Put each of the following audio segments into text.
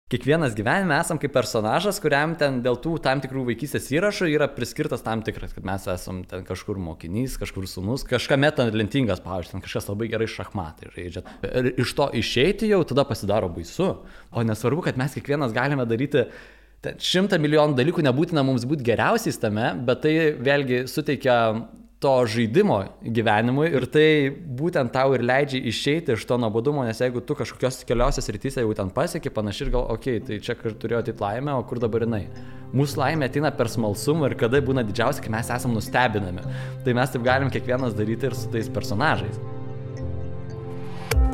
Kiekvienas gyvenime esam kaip personažas, kuriam ten dėl tų tam tikrų vaikystės įrašų yra priskirtas tam tikras, kad mes esam ten kažkur mokinys, kažkur sūnus, kažkame talentingas, pavyzdžiui, ten kažkas labai gerai šachmatai žaidžia. Ir iš to išeiti jau tada pasidaro baisu. O nesvarbu, kad mes kiekvienas galime daryti 100 milijonų dalykų, nebūtina mums būti geriausiais tame, bet tai vėlgi suteikia to žaidimo gyvenimui ir tai būtent tau ir leidžia išeiti iš to nuobodumo, nes jeigu tu kažkokios keliose srityse jau ten pasieki panašiai ir gal, okei, tai čia turėjo ateit laimę, o kur dabar jinai? Mūsų laimė ateina per smalsumą ir kada būna didžiausia, kai mes esam nustebinami. Tai mes taip galim kiekvienas daryti ir su tais personažais.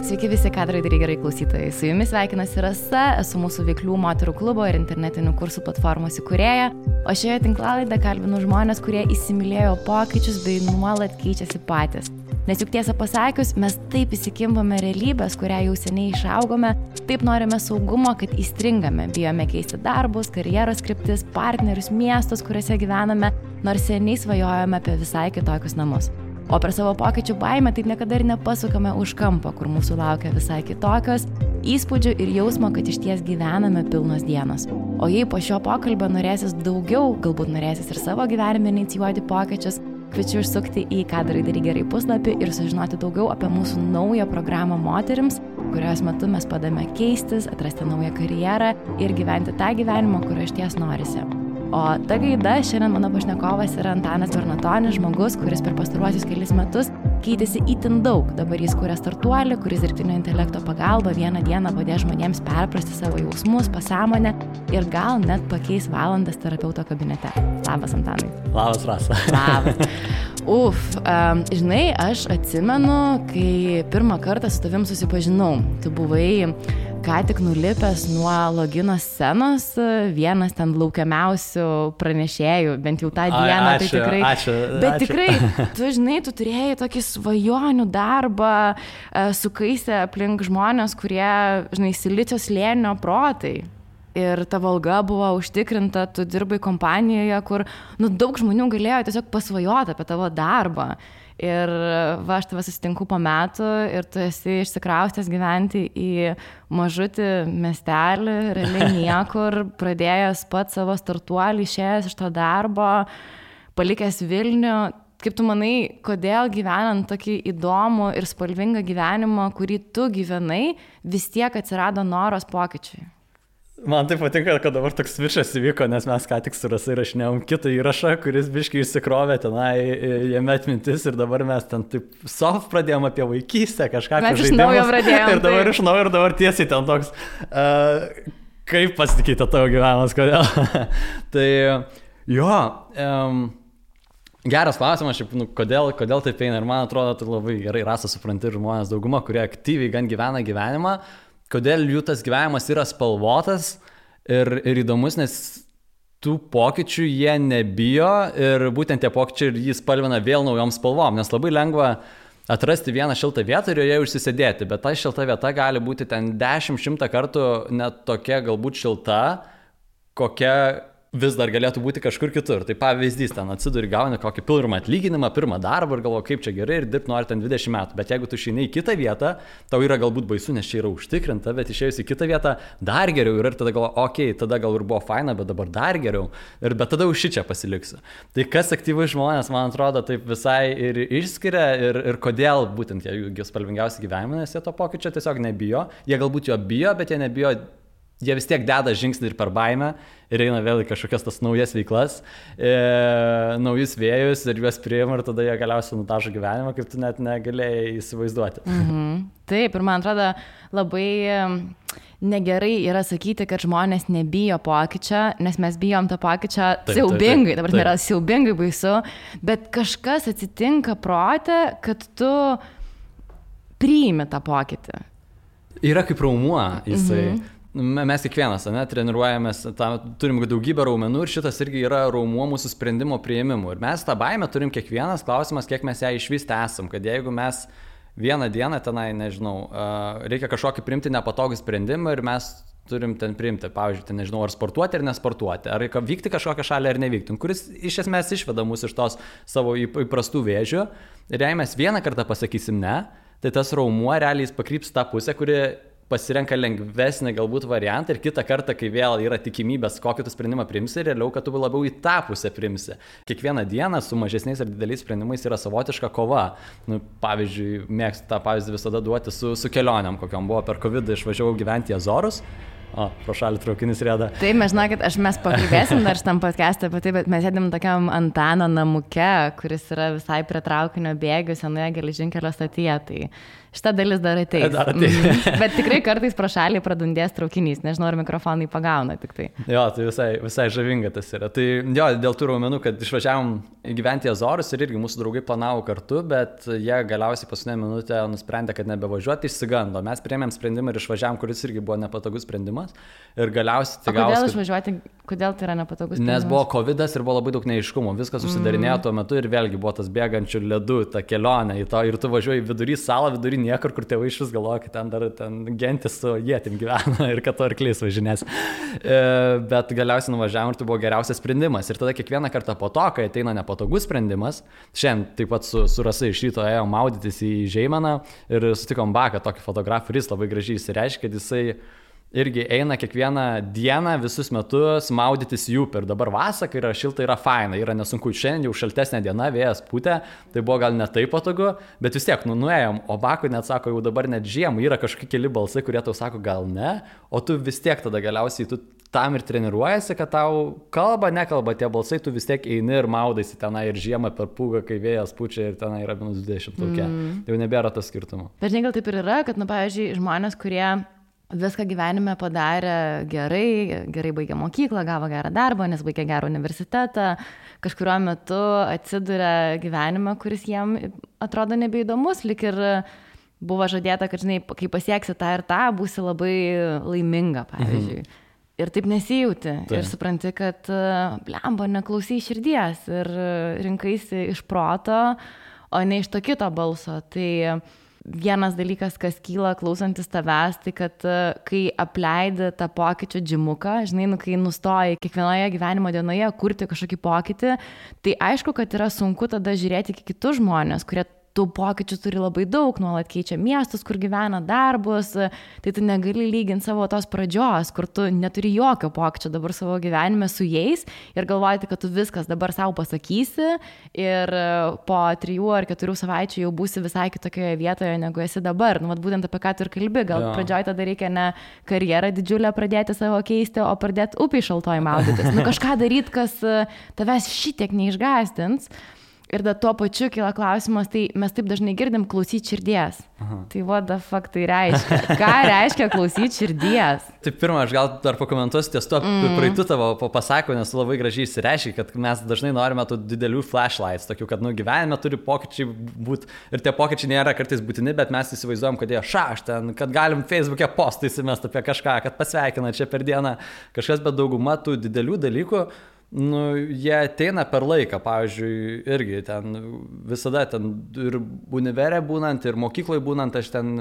Sveiki visi kadrai gerai klausytojai. Su jumis sveikinasi Rasa, esu mūsų veiklių moterų klubo ir internetinių kursų platformos įkūrėja, o šioje tinklalaidėje kalbinu žmonės, kurie įsimylėjo pokyčius bei nuolat keičiasi patys. Nes juk tiesą pasakius, mes taip įsikimbame realybės, kurią jau seniai išaugome, taip norime saugumo, kad įstringame, bijome keisti darbus, karjeros kryptis, partnerius, miestus, kuriuose gyvename, nors seniai svajojame apie visai kitokius namus. O per savo pokyčių baimę taip niekada ir nepasukame už kampo, kur mūsų laukia visai kitokios įspūdžių ir jausmo, kad išties gyvename pilnos dienos. O jei po šio pokalbio norėsis daugiau, galbūt norėsis ir savo gyvenime inicijuoti pokyčius, kviečiu užsukti į Kadrai gerai puslapį ir sužinoti daugiau apie mūsų naują programą moterims, kurios metu mes padame keistis, atrasti naują karjerą ir gyventi tą gyvenimą, kurio išties norisi. O ta gaida, šiandien mano pašnekovas yra Antanas Bernatonis, žmogus, kuris per pastaruosius kelis metus keitėsi itin daug. Dabar jis kuria startuolį, kuris dirbtinio intelekto pagalba vieną dieną padės žmonėms perprasti savo jausmus, pasąmonę ir gal net pakeis valandas terapeuto kabinete. Labas, Antanai. Labas, Rasa. Labas. Žinai, aš atsimenu, kai pirmą kartą su tavim susipažinau. Tu buvai ką tik nulipęs nuo logino scenos, vienas ten laukiamiausių pranešėjų, bent jau tą dieną. Tai tikrai. Ačiū. Bet tikrai, tu žinai, tu turėjai tokį svajonių darbą, sukaisę aplink žmonės, kurie, žinai, Silicio slėnio protai. Ir tavo alga buvo užtikrinta, tu dirbai kompanijoje, kur daug žmonių galėjo tiesiog pasvajoti apie tavo darbą. Ir aš tave susitinku po metų ir tu esi išsikraustęs gyventi į mažutį miestelį, realiai niekur, pradėjęs pats savo startuolį, išėjęs iš to darbo, palikęs Vilnių. Kaip tu manai, kodėl gyvenant tokį įdomų ir spalvingą gyvenimą, kurį tu gyvenai, vis tiek atsirado noras pokyčiui? Man tai patinka, kad dabar toks višas įvyko, nes mes ką tik su Rasa įrašinėjom kitą įrašą, kuris biškai išsikrovė tenai, jame atmintis ir dabar mes ten taip soft pradėjom apie vaikystę, kažką apie žaidimus. Mes iš naujo pradėjom. Ir dabar iš naujo ir dabar tiesiai ten toks, kaip pasikeitė tavo gyvenimas, kodėl. Tai jo, geras klausimas, kodėl taip eina ir man atrodo, tu labai gerai Rasa supranti žmonės dauguma, kurie aktyviai gan gyvena gyvenimą. Kodėl jų tas gyvenimas yra spalvotas ir įdomus, nes tų pokyčių jie nebijo ir būtent tie pokyčiai ir jį spalvina vėl naujom spalvom, nes labai lengva atrasti vieną šiltą vietą ir joje užsisėdėti, bet ta šilta vieta gali būti ten 10-100 kartų net tokia galbūt šilta, kokia vis dar galėtų būti kažkur kitur. Tai pavyzdys, ten atsiduri, gauni kokį pirmą atlyginimą, pirmą darbą ir galvoji, kaip čia gerai ir dirbti nori ten 20 metų. Bet jeigu tu išeini į kitą vietą, tau yra galbūt baisu, nes čia yra užtikrinta, bet išėjus į kitą vietą dar geriau ir tada galvoji, okei, tada gal ir buvo faina, bet dabar dar geriau. Bet tada už šičia pasiliksiu. Tai kas aktyvai žmonės, man atrodo, taip visai ir išskiria ir kodėl būtent jie spalvingiausi gyvenime, nes jie to pokyčio tiesiog nebijo. Jie galbūt jo bijo, bet jie nebijo. Jie vis tiek deda žingsnį ir per baimę ir eina vėl į kažkokias tas naujas veiklas, naujus vėjus ir juos priima ir tada jie galiausiai nutažo gyvenimą, kaip tu net negalėjai įsivaizduoti. Taip, ir man atrodo labai negerai yra sakyti, kad žmonės nebijo pokyčio, nes mes bijom to pokyčio siaubingai, dabar nėra siaubingai baisu, bet kažkas atsitinka prote, kad tu priimi tą pokytį. Yra kaip raumuo jisai. Mes kiekvienas, treniruojamės, turim daugybę raumenų ir šitas irgi yra raumuo mūsų sprendimo priėmimų. Ir mes tą baimę turim kiekvienas, klausimas, kiek mes ją išvysti esam, kad jeigu mes vieną dieną tenai, nežinau, reikia kažkokį priimti nepatogų sprendimą ir mes turim ten priimti, pavyzdžiui, ten, nežinau, ar sportuoti ar nesportuoti, ar reikia vykti kažkokią šalį ar nevykti, kuris iš esmės išveda mus iš tos savo įprastų vėžių. Ir jei mes vieną kartą pasakysim ne, tai tas raumuo realiai pakryps tą pusę, kuri pasirenka lengvesnį galbūt variantą ir kitą kartą, kai vėl yra tikimybės, kokį tu sprendimą priimsi, realiau, kad tu labiau į tą pusę priimsi. Kiekvieną dieną su mažesniais ir dideliais sprendimais yra savotiška kova. Nu, pavyzdžiui, mėgstu tą pavyzdį visada duoti su kelionėm, kokiam buvo per COVID, išvažiavau gyventi į Azorus. O, pro šalį traukinis rieda. Taip, mes žinokit, mes pakalbėsim dar šitam podcast'e apie tai, bet mes sėdim tokiam Antano namuke, kuris yra visai prie traukinio bėgių senoje geležinkelio stotyje, tai šita dalis dar ateis. Bet tikrai kartais pro šalį pradundės traukinys, nežinau, ar mikrofonai pagauna tik tai. Jo, tai visai žavinga tas yra. Tai jo, dėl tų raumenų, kad išvažiavom gyventi į Azorus ir irgi mūsų draugai planavo kartu, bet jie galiausiai paskutinę minutę nusprendė, kad nebevažiuoti, išsigando. Mes priėmėm sprendimą ir išvažiavom, kuris irgi buvo nepatogus sprendimas. Ir galiausiai tai gausi. Kodėl išvažiuoti, kodėl tai yra nepatogus sprendimas? Nes buvo COVID'as ir buvo labai daug neaiškumų. Viskas užsidarinėjo tuo metu ir vėlgi buvo tas bėgančių ledų, ta kelionė į to ir tu važiuoji vidury salą, vidury niekur, kur tėvai iš vis galvoja, kad ten dar gentis su ietim gyvena ir kad to arklys važinės. Bet galiausiai nuvažiavom ir tai buvo geriausias sprendimas. Ir tada kiekvieną kartą po to, kai ateina nepatogus sprendimas, šiandien taip pat su Rasa iš ryto ėjom maudytis į Žeimeną ir sutikom Baką, tokį fotografą, kuris labai gražiai įsireiškė, kad jisai irgi eina kiekvieną dieną visus metus maudytis į upę. Ir dabar vasarą, kai yra šilta, yra faina, yra nesunku. Šiandien jau šaltesnė diena, vėjas pūtė, tai buvo gal ne taip patogu, bet vis tiek, nuėjom. O Bakui net sako, jau dabar net žiemą yra kažkokie keli balsai, kurie tau sako, gal ne, o tu vis tiek tada galiausiai tu tam ir treniruojasi, kad tau nekalba tie balsai, tu vis tiek eini ir maudaisi tenai ir žiemą per pūgą, kai vėjas pučia ir tenai yra minus 20 tokia. Jau nebėra tas skirtumo. Bet žinai, gal taip ir yra, kad, pavyzdžiui, žmonės, kurie viską gyvenime padarė gerai baigė mokyklą, gavo gerą darbą, nes baigė gerą universitetą, kažkuriuo metu atsiduria gyvenime, kuris jiem atrodo nebeįdomus, lik ir buvo žadėta, kad, žinai, kai pasieksi tą ir tą, būsi labai laiminga, pavyzdžiui. Ir taip nesijauti. Ir supranti, kad blemba, neklausai širdies ir rinkaisi iš proto, o ne iš to kito balso. Tai vienas dalykas, kas kyla klausantis tavęs, tai kad kai apleidi tą pokyčių džimuką, žinai, kai nustoji kiekvienoje gyvenimo dienoje kurti kažkokį pokytį, tai aišku, kad yra sunku tada žiūrėti į kitus žmonės, kurie tų pokyčių turi labai daug, nuolat keičia miestus, kur gyvena, darbus, tai tu negali lyginti savo tos pradžios, kur tu neturi jokio pokyčio dabar savo gyvenime su jais ir galvoti, kad tu viskas dabar savo pasakysi ir po 3 ar 4 savaičių jau būsi visai kitokioje vietoje, negu esi dabar. Nu, vat būtent apie ką tu ir kalbi, gal pradžioj tada reikia ne karjerą didžiulę pradėti savo keisti, o pradėti upiai šaltoj maudytis. Nu, kažką daryti, kas tavęs šitiek neišgąsdins. Ir da tuo pačiu kyla klausimas, tai mes taip dažnai girdim klausyti širdies. Aha. Tai what the fuck tai reiškia? Ką reiškia klausyti širdies? Tai pirmą, aš gal dar pakomentuosiu ties to praeitų tavo pasakymą, nes labai gražiai įsireiškia, kad mes dažnai norime tų didelių flashlights, tokių, kad gyvenime turi pokyčiai būti ir tie pokyčiai nėra kartais būtini, bet mes įsivaizduojam, kad jie ten, kad galim Facebook'e postą įsimest apie kažką, kad pasveikina čia per dieną kažkas, bet dauguma tų didelių dalykų, jie ateina per laiką, pavyzdžiui, irgi ten visada ten ir univere būnant, ir mokykloje būnant, aš ten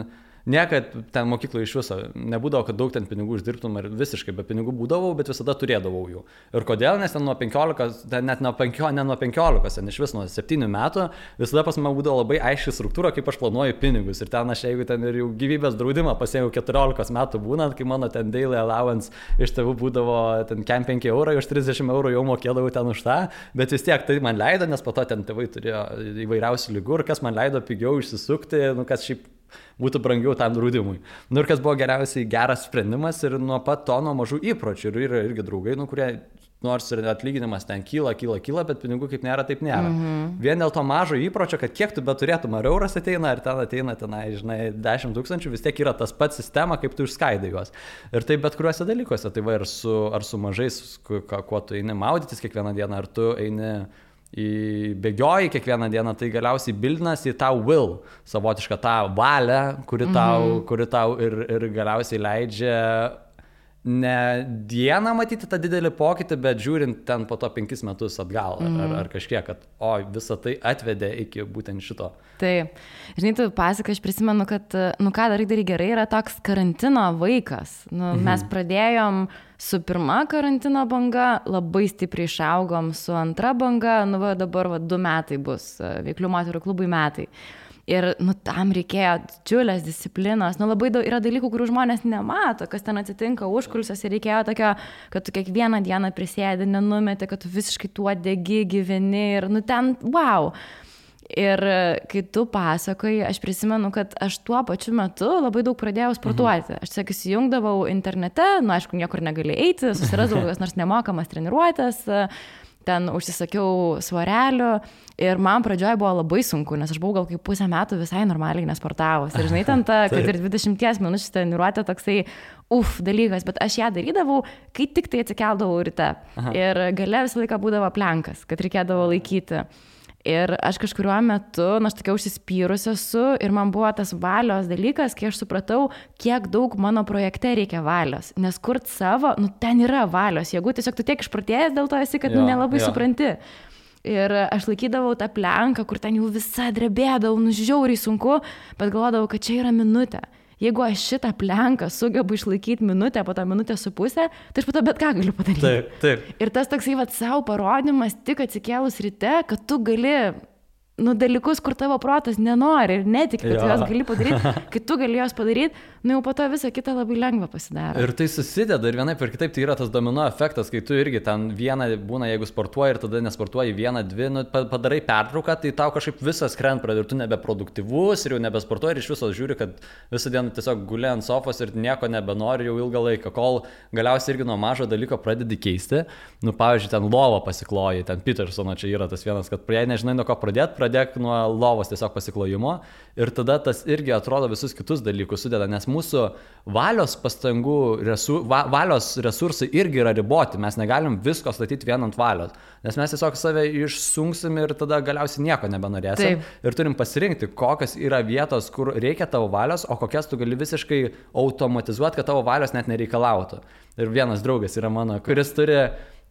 niekad ten mokykloje iš viso nebūdavo, kad daug ten pinigų uždirbtum ir visiškai be pinigų būdavau, bet visada turėdavau jų. Ir kodėl, nes ten nuo 15, net nuo 15, ten iš vis nuo 7 metų, visada pas mane būdavo labai aiški struktūra, kaip aš planuoju pinigus. Ir ten aš, jeigu ten ir jau gyvybės draudimą pasėjau 14 metų būnant, kai mano ten daily allowance iš tėvų būdavo ten 5 €, už 30 € jau mokėdavau ten už tą, bet vis tiek tai man leido, nes po to ten tėvai turėjo įvairiausių ligų ir kas man leido pigiau išsisukti, kas šiaip būtų brangiau tam draudimui. Ir kas buvo geriausiai geras sprendimas ir nuo pat to nuo mažų įpročių. Ir yra irgi draugai, kurie nors ir atlyginimas ten kyla, bet pinigų kaip nėra, taip nėra. Vien dėl to mažo įpročio, kad kiek tu beturėtum, ar euras ateina, ar ten ateina, žinai, 10 000, vis tiek yra tas pats sistema, kaip tu išskaidai juos. Ir taip bet kuriuose dalykuose, tai va ir ar su mažais, kuo tu eini maudytis kiekvieną dieną, ar tu eini bėgioji kiekvieną dieną, tai galiausiai bildinas į tą will, savotišką tą valią, kuri tau ir galiausiai leidžia ne dieną matyti tą didelį pokytį, bet žiūrint ten po to 5 metus atgal ar kažkiek, kad visą tai atvedė iki būtent šito. Taip. Žinai, tu pasakai, aš prisimenu, kad, ką darai gerai, yra toks karantino vaikas. Mes pradėjom su pirma karantino banga, labai stipriai išaugom su antra banga, dabar 2 metai bus, Veiklių moterų klubui metai. Ir, tam reikėjo didžiulės disciplinos. Labai daug yra dalykų, kurių žmonės nemato, kas ten atsitinka užkulisiuose. Ir reikėjo tokio, kad tu kiekvieną dieną prisėdi, nenumeti, kad tu visiškai tuo degi, gyveni ir, ten, wow. Ir kai tu pasakoji, aš prisimenu, kad aš tuo pačiu metu labai daug pradėjau sportuoti. Aš tiesiog įsijungdavau internete, aišku, niekur negali eiti, susirasdavau kokias nors nemokamas treniruotės, ten užsisakiau svarelių ir man pradžioje buvo labai sunku, nes aš buvau gal kaip pusę metų visai normaliai nesportavus. Ir žinai, ten ta, kad ir 20 minučių treniruotė toksai dalykas, bet aš ją darydavau, kai tik tai atsikeldavau ryte. Ir gale visą laiką būdavo plenkas, kad reikėdavo laikyti. Ir aš kažkuriuo metu, aš tokia užsispyrus esu ir man buvo tas valios dalykas, kai aš supratau, kiek daug mano projekte reikia valios. Nes kurt savo, ten yra valios, jeigu tiesiog tu tiek išprotėjęs dėl to esi, kad nelabai supranti. Ir aš laikydavau tą plenką, kur ten jau visa drebėdavau, žiauriai sunku, bet galvodavau, kad čia yra minutė. Jeigu aš šitą plenką sugebu išlaikyti minutę, po to minutę su pusę, tai aš po to bet ką galiu padaryti. Taip. Ir tas toksai savo parodimas tik atsikėlus ryte, kad tu gali dalykus, kur tavo protas nenori ir netiki, kad tu jos gali padaryti, kai tu gali jos padaryti, jau po to visą kitą labai lengva pasidaro. Ir tai susideda ir vienaip ir kitaip, tai yra tas domino efektas, kai tu irgi ten vieną būna, jeigu sportuoji ir tada nesportuoji vieną, dvi, padarai pertrauką, tai tau kažkaip visas krent pradeda ir tu nebeproduktyvus ir jau nebesportuoji ir iš viso žiūri, kad visą dieną tiesiog guli ant sofos ir nieko nebenori jau ilgą laiką, kol galiausiai irgi nuo mažo dalyko pradedi keisti. Pavyzdžiui, ten lovą pasikloji, ten Petersono čia yra tas vienas, kad jei nežinai nuo ko pradėk nuo lovos tiesiog pasiklojimo ir tada tas irgi atrodo visus kitus dalykus sudeda, nes mūsų valios pastangų, valios resursai irgi yra riboti, mes negalim visko statyti vien ant valios, nes mes tiesiog save išsunksim ir tada galiausiai nieko nebenorėsim. Taip. Ir turim pasirinkti, kokios yra vietos, kur reikia tavo valios, o kokias tu gali visiškai automatizuoti, kad tavo valios net nereikalautų. Ir vienas draugas yra mano, kuris turi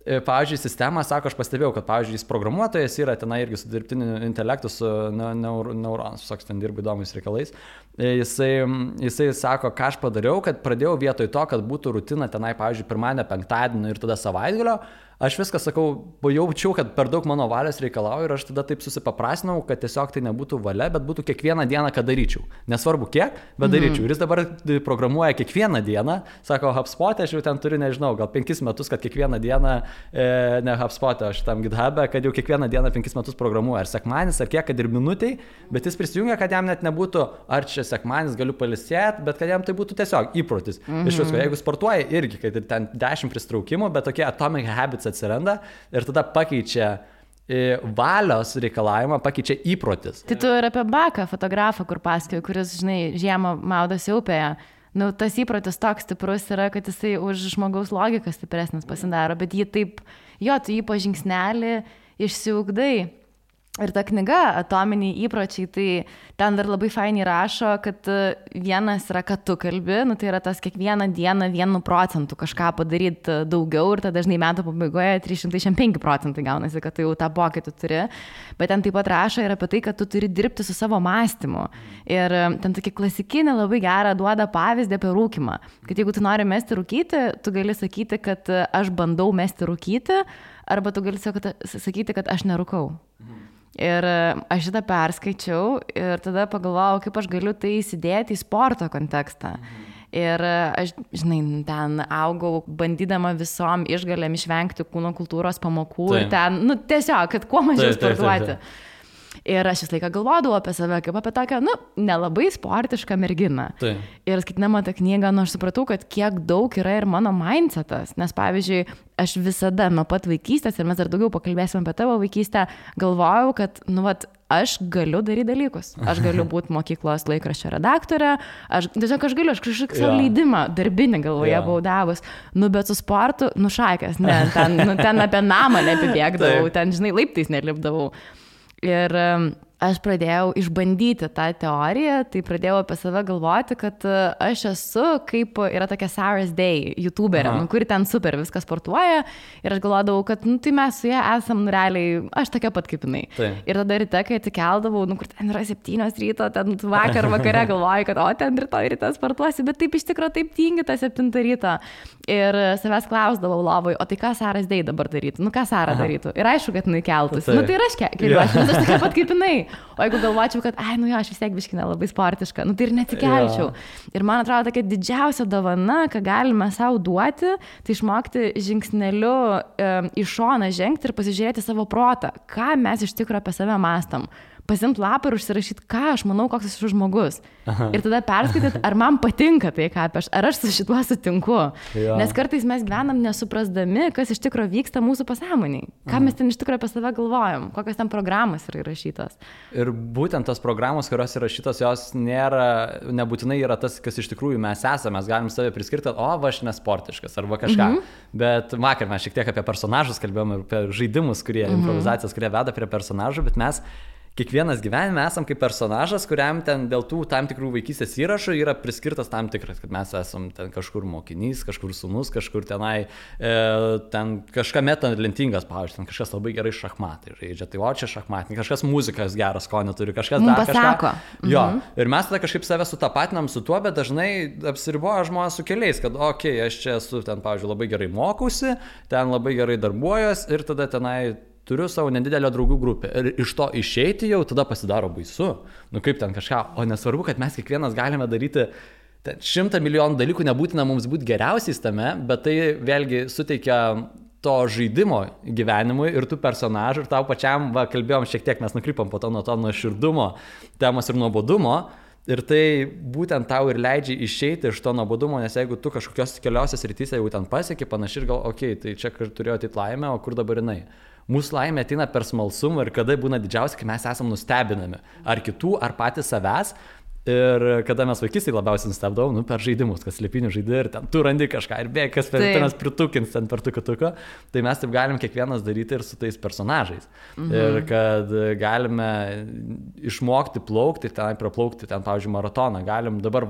pavyzdžiui, sistemą, sako, aš pastebėjau, kad, pavyzdžiui, jis programuotojas yra tenai irgi su dirbtiniu intelektu, su neuronus, visoks ten dirba įdomiais reikalais. Jisai sako, ką aš padariau, kad pradėjau vietoj to, kad būtų rutina tenai, pavyzdžiui, pirmadienio, penktadienio ir tada savaitgalio. Aš viską sakau, jaučiau, kad per daug mano valios reikalauju ir aš tada taip susipaprastinau, kad tiesiog tai nebūtų valia, bet būtų kiekvieną dieną, kad daryčiau. Nesvarbu kiek, bet daryčiau. Ir jis dabar programuoja kiekvieną dieną, sako, HubSpot'e aš jau ten turiu, nežinau, gal 5 metus, kad kiekvieną dieną, ne HubSpot'e, aš tam GitHub'e, kad jau kiekvieną dieną 5 metus programuoja. Ar sekmanis, ar kiek, kad ir minutiai, bet jis prisijungia, kad jam net nebūtų, ar čia sekmanis galiu palisėti, bet kad jam tai būtų tiesiog įprotis. Iš visko, jeigu sportuoja irgi, kad ir ten 10 pristraukimų, bet tokie atomic habits atsiranda ir tada pakeičia valios reikalavimą, pakeičia įprotis. Tai tu ir apie Baką, fotografą, kur pasakoju, kuris, žinai, žiemą maudosi upėje. Tas įprotis toks stiprus yra, kad jisai už žmogaus logiką stipresnis pasidaro, bet jį taip, tu jį po žingsnelį išsiugdai. Ir ta knyga Atominiai įpročiai, tai ten dar labai fainiai rašo, kad vienas yra, kad tu kalbi, tai yra tas kiekvieną dieną 1% kažką padaryti daugiau ir tada dažnai metų pabaigoje 365% gaunasi, kad tu jau tą pokytį turi. Bet ten taip pat rašo ir apie tai, kad tu turi dirbti su savo mąstymu. Ir ten tokį klasikinį labai gerą duoda pavyzdį apie rūkymą. Kad jeigu tu nori mesti rūkyti, tu gali sakyti, kad aš bandau mesti rūkyti, arba tu gali sakyti, kad aš nerūkau. Ir aš šitą perskaičiau ir tada pagalvojau, kaip aš galiu tai įsidėti į sporto kontekstą. Ir aš, žinai, ten augau bandydama visom išgalėm išvengti kūno kultūros pamokų. Taip. Ir ten, tiesiog, kad kuo mažiau sportuoti. Taip. Ir aš vis laiką galvodavau apie save, kaip apie tokią, nelabai sportišką merginą. Taip. Ir skaitydama tą knygą, aš supratau, kad kiek daug yra ir mano mindsetas. Nes, pavyzdžiui, aš visada nuo pat vaikystės, ir mes dar daugiau pakalbėsim apie tavo vaikystę, galvojau, kad, aš galiu daryti dalykus. Aš galiu būti mokyklos laikraščio redaktorė, aš galiu, aš kažkokį savo leidimą darbinį galvoje buvau davus. Bet su sportu, šakės, ne, ten apie namą nepibėgdavau, ten, žinai, laiptais nelipdavau. Ir aš pradėjau išbandyti tą teoriją, tai pradėjau apie save galvoti, kad aš esu kaip yra tokia Sarah's Day youtuberė, kuri ten super viską sportuoja ir aš galvodavau, kad tai mes su ją esam realiai, aš tokia pat kaip jinai. Tai. Ir tada ryte, kai atsikeldavau, kur ten yra 7 ryto, ten vakare galvoju, kad ten rytoj ryte sportuosi, bet taip iš tikrųjų taip tingi tą 7 ryto. Ir savęs klausdavau lovoj, o tai ką Sarah's Day dabar darytų? Ką Sarah darytų? Ir aišku, kad jinai keltųsi. Tai ir aš keliuosi, aš tokia pat kaip jinai. O jeigu galvočiau, kad, aš vis tiek biškina labai sportiška, tai ir netikelčiau. Ir man atrodo, tokia didžiausia dovana, ką galime savo duoti, tai išmokti žingsneliu į šoną žengti ir pasižiūrėti savo protą, ką mes iš tikrųjų apie save mąstam. Pasimti lapą ir užsirašyti, ką aš manau, koks esu žmogus. Ir tada perskaityti, ar man patinka tai, ką ar aš su šituo sutinku. Nes kartais mes gyvenam nesuprasdami, kas iš tikrųjų vyksta mūsų pasąmoniai. Ką mes ten iš tikrųjų apie save galvojam, kokios ten programos yra įrašytos. Ir būtent tos programos, kurios įrašytos, jos nebūtinai yra tas, kas iš tikrųjų mes esame. Mes galim save priskirti, aš nesportiškas arba kažką. Bet vakar mes šiek tiek apie personažus kalbėjom ir apie žaidimus, improvizacijas, kurie veda prie personažų, bet mes kiekvienas gyvenime esam kaip personažas, kuriam ten dėl tų tam tikrų vaikystės įrašų yra priskirtas tam tikras, kad mes esam ten kažkur mokinys, kažkur sūnus, kažkur tenai, ten kažkame talentingas, pavyzdžiui, ten kažkas labai gerai šachmatai žaidžia, tai čia šachmatai, kažkas muzikas geras skonio turi, kažkas dar kažką. Jo, ir mes tada kažkaip save sutapatinam su tuo, bet dažnai apsiriboja žmonės su keliais, kad aš čia esu ten, pavyzdžiui, labai gerai mokausi, ten labai gerai darbuojuos ir tada tenai turiu savo nedidelę draugų grupę ir iš to išeiti jau tada pasidaro baisu. Kaip ten kažką, o nesvarbu, kad mes kiekvienas galime daryti 100 milijonų dalykų, nebūtina mums būti geriausiais tame, bet tai vėlgi suteikia to žaidimo gyvenimui ir tų personažų ir tau pačiam, kalbėjom šiek tiek, mes nukrypom po to nuo širdumo temos ir nuobodumo. Ir tai būtent tau ir leidžia išeiti iš to nuobodumo, nes jeigu tu kažkokios keliose srityse jau ten pasieki panašiai ir gal, tai čia turėjo ateit laimę, o kur dabar jinai? Mūsų laimė ateina per smalsumą ir kada būna didžiausia, kai mes esam nustebinami. Ar kitų, ar patys savęs. Ir kada mes vaikystėje labiausiai nustebdavom, per žaidimus, kas slėpinių žaidė ir ten tu randi kažką ir bėg, kas per pritukins ten per tuką, tai mes taip galim kiekvienas daryti ir su tais personažais. Ir kad galime išmokti plaukti, ten praplaukti, ten, pavyzdžiui, maratoną, galim dabar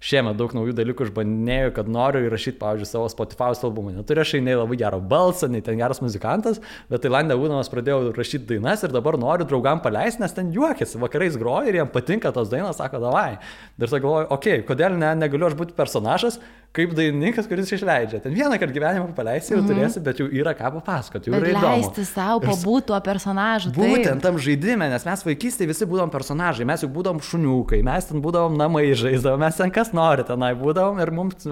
šiemet daug naujų dalykų išbandinėjau, kad noriu įrašyti, pavyzdžiui, savo Spotify albumą. Neturiu aš nei labai gerą balsą, nei ten geras muzikantas, bet Tailande būdamas pradėjau rašyti dainas ir dabar noriu draugam paleisti, nes ten juokiasi, vakarais groja ir jiem patinka tos dainos, sako, davai. Ir tada galvoju, kodėl negaliu aš būti personažas, kaip dainininkas, kuris išleidžia. Ten vieną kartą gyvenimą paleisi ir turėsi, bet jau yra ką papasakoti, jau yra įdomu. Leisti savo pabūti tuo personažu. Būtent tam žaidime, nes mes vaikystėje visi būdom personažai, mes jau būdom šuniukai, mes ten būdom namai žaisdavom, mes ten kas nori tenai būdavom ir mums,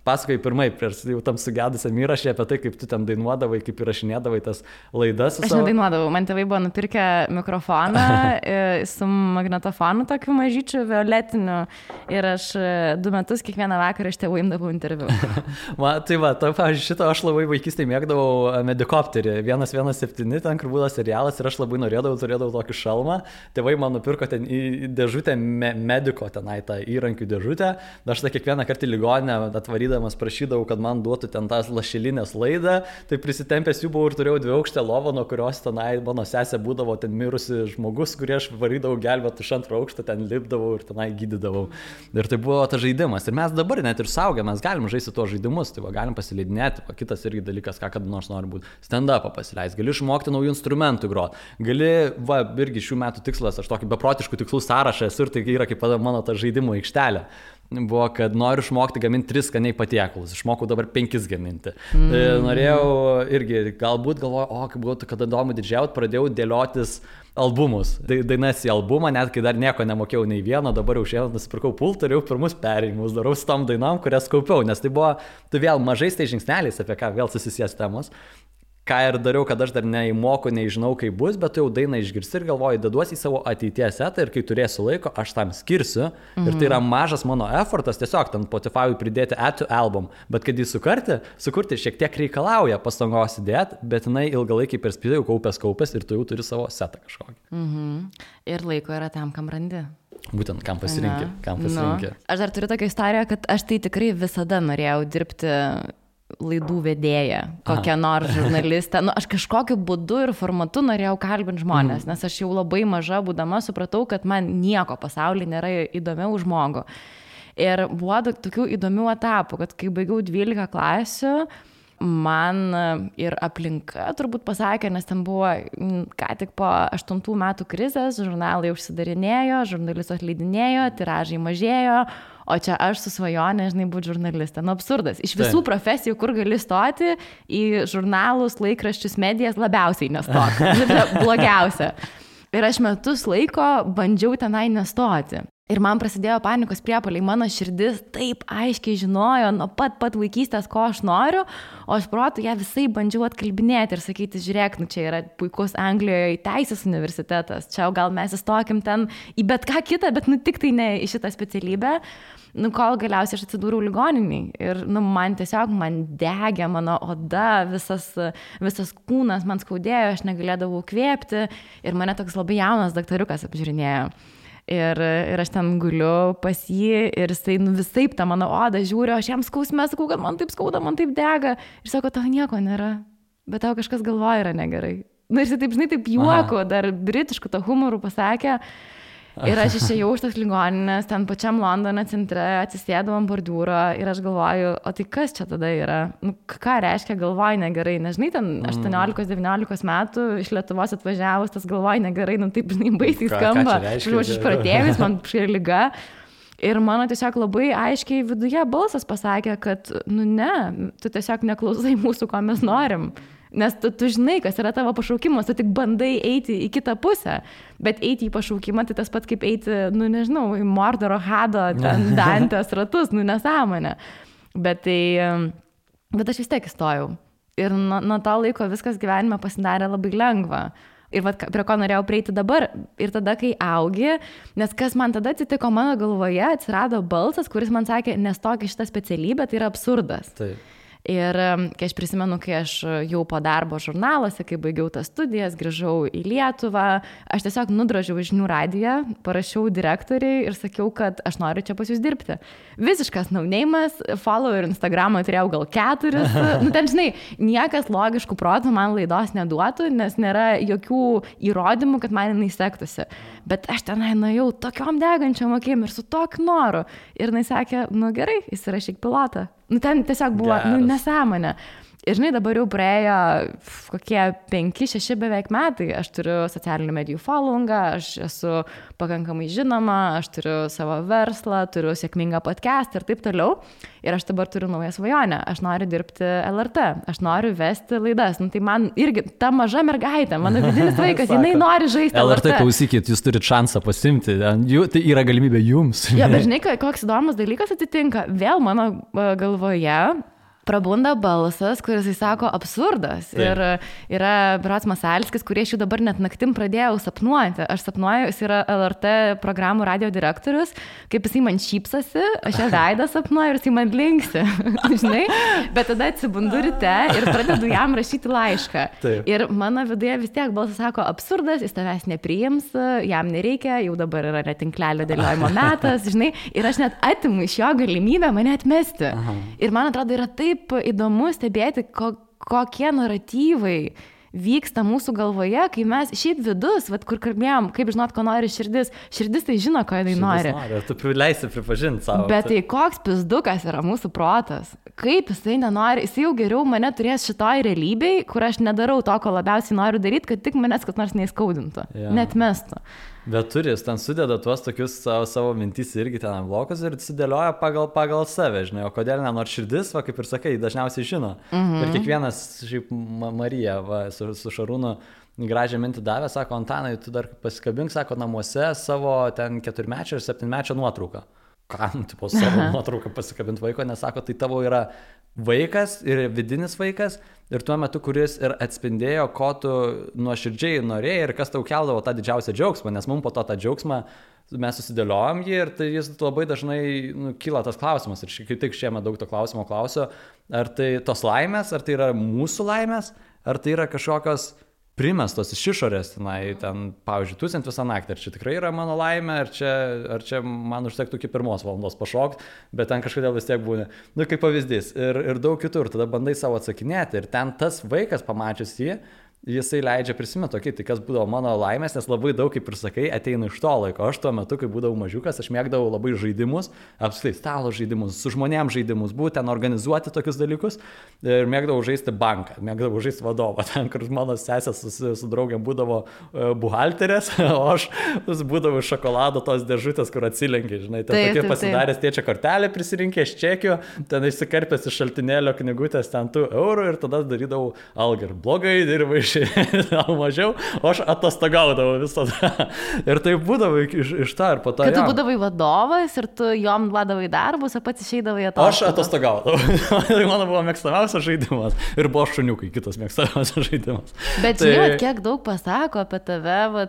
pasakoju pirmai, prieš jau tam sugedusiam įrašė apie tai, kaip tu ten dainuodavai, kaip įrašinėdavai tas laidas. Aš nedainuodavau, man tėvai buvo nupirkę mikrofoną su magnetofonu tokiu mažyčiu violetiniu ir aš 2 metus kiekvieną vakarą iš tėvų imdavau interviu. Pavyzdžiui, šitą aš labai vaikystėje mėgdavau Medikopterį, 117, ten, kur buvo serialas ir aš labai turėdavau tokį šalmą. Tėvai man nupirko ten į dėžutę mediko, tenai tą įrankių dėžutę. Aš tą kiekvieną kartą į ligoninę atvarydavau, prašydavau, kad man duotų ten tas lašelinės laidą, tai prisitempęs jų buvau ir turėjau 2-aukštę lovą, nuo kurios tenai mano sesė būdavo ten mirusi žmogus, kurį aš varydavau gelbėti iš 2 aukšto, ten lipdavau ir tenai gydydavau. Ir tai buvo tas žaidimas. Ir mes dabar net ir suaugę, mes galim žaisti tuos žaidimus, tai galim pasileidinėti. Kitas irgi dalykas, ką kada nors nori būti. Stand-upą pasileisti, gali išmokti naujų instrumentų groti. Gali, irgi šių metų tikslas, aš tokį beprotiškų tikslų sąrašą esu ir tai yra kaip mano ta žaidimo aikštelė. Buvo, kad noriu išmokti gaminti 3 skaniai patiekalus. Išmokau dabar 5 gaminti. Norėjau irgi, galbūt galvoju, kaip būtų, kada įdomu didžiauti, pradėjau dėliotis albumus. Dainas į albumą, net kai dar nieko nemokėjau nei vieno, dabar jau šiandien nusipirkau pultą ir jau pirmus perėjimus darau su tom dainom, kurias kaupiau, nes tai buvo, tu vėl mažais tai žingsneliais, apie ką vėl susisies temos. Ką ir dariau, kad aš dar neįmoku, nežinau, kaip bus, bet jau dainą išgirsti ir galvoju, deduosi į savo ateities setą ir kai turėsiu laiko, aš tam skirsiu. Ir tai yra mažas mano effortas, tiesiog ten Spotify pridėti add to album. Bet kad jį sukurti šiek tiek reikalauja pastangos įdėti, bet jinai ilgalaikiai perspektyvai kaupęs ir tu jau turi savo setą kažkokį. Ir laiko yra tam, kam randi. Būtent, kam pasirinkti. Aš dar turiu tokią istoriją, kad aš tai tikrai visada norėjau dirbti laidų vedėja, kokią nors žurnalistę. Aš kažkokiu būdu ir formatu norėjau kalbinti žmonės, nes aš jau labai maža būdama supratau, kad man nieko pasaulyje nėra įdomiau už žmogų. Ir buvo tokių įdomių etapų, kad kai baigiau 12 klasių, man ir aplinka turbūt pasakė, nes ten buvo ką tik po 8 metų krizės, žurnalai užsidarinėjo, žurnalistų atleidinėjo, tiražai mažėjo, o čia aš su svajonė, būti žurnalistė. Absurdas. Iš visų profesijų, kur gali stoti, į žurnalus, laikraščius, medijas labiausiai nestoti. Blogiausia. Ir aš metus laiko bandžiau tenai nestoti. Ir man prasidėjo panikos priepuoliai, mano širdis taip aiškiai žinojo nuo pat vaikystės, ko aš noriu, o aš protu ją visai bandžiau atkalbinėti ir sakyti, žiūrėk, čia yra puikus Anglijoje teisės universitetas, čia gal mes įstokim ten į bet ką kitą, bet tik tai ne į šitą specialybę, kol galiausiai aš atsidūriau ligoniniai. Ir man degė mano oda, visas kūnas man skaudėjo, aš negalėdavau kvėpti ir mane toks labai jaunas daktariukas apžiūrinėjo. Ir aš ten guliu pas jį ir jisai visaip tą mano odą žiūri, aš jam skausme sakau, kad man taip skauda, man taip dega. Ir sako, tau nieko nėra, bet tau kažkas galvoja yra negerai. Ir jisai taip, žinai, taip juoko, dar britiškų tą humorų pasakė. Ir aš išėjau iš tos ligoninės, ten pačiam Londono centre, atsisėdau ant bordiūro ir aš galvoju, o tai kas čia tada yra? Ką reiškia galvoju negerai? Nežinai, ten 18-19 metų iš Lietuvos atvažiavus, tas galvoju negerai, taip, žinai, baisiai skamba. Aš išpratėjus, man šia liga. Ir mano tiesiog labai aiškiai viduje balsas pasakė, kad, ne, tu tiesiog neklausai mūsų, ko mes norim. Nes tu žinai, kas yra tavo pašaukimas, tu tik bandai eiti į kitą pusę, bet eiti į pašaukimą tai tas pat kaip eiti, nežinau, į Mordoro Hado, ten Dantės ratus, nesąmonė. Bet aš vis tiek įstojau. Ir nuo to laiko viskas gyvenime pasidarė labai lengva. Ir prie ko norėjau prieiti dabar. Ir tada, kai augi, nes kas man tada atsitiko, mano galvoje atsirado balsas, kuris man sakė, nestok į šitą specialybę, tai yra absurdas. Taip. Ir kai aš prisimenu, kai aš jau po darbo žurnaluose, kai baigiau tas studijas, grįžau į Lietuvą, aš tiesiog nudrožiau žinių radiją, parašiau direktoriai ir sakiau, kad aš noriu čia pas jūs dirbti. Visiškas nauneimas, follower Instagramą turėjau gal 4. Ten, žinai, niekas logiškų protų man laidos neduotų, nes nėra jokių įrodymų, kad man jinai sektųsi. Bet aš tenai nuėjau tokiom degančiom akim ir su tokiu noru. Ir jinai sakė, gerai, įsirašyk pilotą. Ten tiesiog buvo, nesąmonė. Ir žinai, dabar jau praėjo kokie 5-6 beveik metai. Aš turiu socialinių medijų followingą, aš esu pakankamai žinoma, aš turiu savo verslą, turiu sėkmingą podcastą ir taip toliau. Ir aš dabar turiu naują svajonę. Aš noriu dirbti LRT, aš noriu vesti laidas. Tai man irgi ta maža mergaitė, mano vidinis vaikas, jinai nori žaisti LRT. Klausykit, jūs turite šansą pasimti, tai yra galimybė jums. Ja, bet žinai, koks įdomus dalykas atsitinka. Vėl mano galvoje prabunda balsas, kuris sako absurdas. Taip. Ir yra Berods Masalskis, kurie aš jau dabar net naktim pradėjau sapnuoti. Aš sapnuoju, jis yra LRT programų radio direktorius, kaip jisai man šypsasi, aš ją veidą sapnuoju ir jisai man linksi. Žinai? Bet tada atsibundu ryte ir pradedu jam rašyti laišką. Taip. Ir mano viduje vis tiek balsas sako absurdas, jis tavęs nepriims, jam nereikia, jau dabar yra netinklelio dėliojimo metas, žinai. Ir aš net atimu iš jo galimybę mane atmesti. Aha. Ir man atrodo, yra taip įdomu stebėti, kokie naratyvai vyksta mūsų galvoje, kai mes šiaip vidus, kur kalbėjom, kaip žinot, ko nori širdis tai žino, ko jinai nori. Tu leisi pripažinti savo. Bet tai koks pizdukas yra mūsų protas. Kaip jisai nenori, jisai jau geriau mane turės šitoj realybėj, kur aš nedarau to, ko labiausiai noriu daryti, kad tik manęs kas nors neįskaudintų, netmestų. Bet turis, ten sudeda tuos tokius savo mintys irgi ten blokus ir sudėlioja pagal save, žinai, o kodėl nenori širdis, kaip ir sakai, dažniausiai žino. Ir kiekvienas, šiaip Marija su Šarūnu gražią mintį davė, sako, Antanai, tu dar pasikabink, sako, namuose savo ten 4-mečio ir 7-mečio nuotrauką. Kam, tipo, savo nuotrauką pasikabinti vaiko, nes sako, tai tavo yra vaikas ir vidinis vaikas ir tuo metu, kuris ir atspindėjo, ko tu nuoširdžiai norėjai ir kas tau keldavo tą didžiausią džiaugsmą, nes mums po to tą džiaugsmą mes susidėliojom jį ir tai jis labai dažnai kyla tas klausimas ir kaip tik šiemet daug to klausimo klausiu, ar tai tos laimės, ar tai yra mūsų laimės, ar tai yra kažkokios primestos iš išorės, ten, pavyzdžiui, tūsint visą naktį, ar čia tikrai yra mano laimė, ar čia man užtektų iki 1 valandos pašokti, bet ten kažkodėl vis tiek būna, kaip pavyzdys, ir daug kitur, tada bandai savo atsakinėti ir ten tas vaikas pamačius jį, jisai leidžia prisiminti, okay, tai kas būdavo mano laimės, nes labai daug, kaip ir sakai, ateina iš to laiko. Aš tuo metu, kai būdavau mažiukas, aš mėgdavau labai žaidimus, apskritai stalo žaidimus, su žmonėm žaidimus, būtent organizuoti tokius dalykus ir mėgdavau žaisti banką, mėgdavau žaisti vadovą, ten, kur mano sesės su draugiam būdavo buhalterės, o aš būdavau šokolado tos dėžutės, kur atsilenki, žinai, ten tokie pasidaręs tėčia kortelę prisirinkęs čekių, ten išsikarpęs iš šaltinėlio knygutės ten 2 eurų ir tada darydavau algą ir blogai dirbai. mažiau, o aš atostogaudavau visada. Ir tai būdavo iš to ir po to. Kad tu būdavai vadovas ir tu jom duodavai darbus, o pats išeidavai atostogas. Aš atostogaudavau. Tai mano buvo mėgstamiausias žaidimas. Ir buvo šuniukai kitas mėgstamiausias žaidimas. Bet žinai, kiek daug pasako apie tave,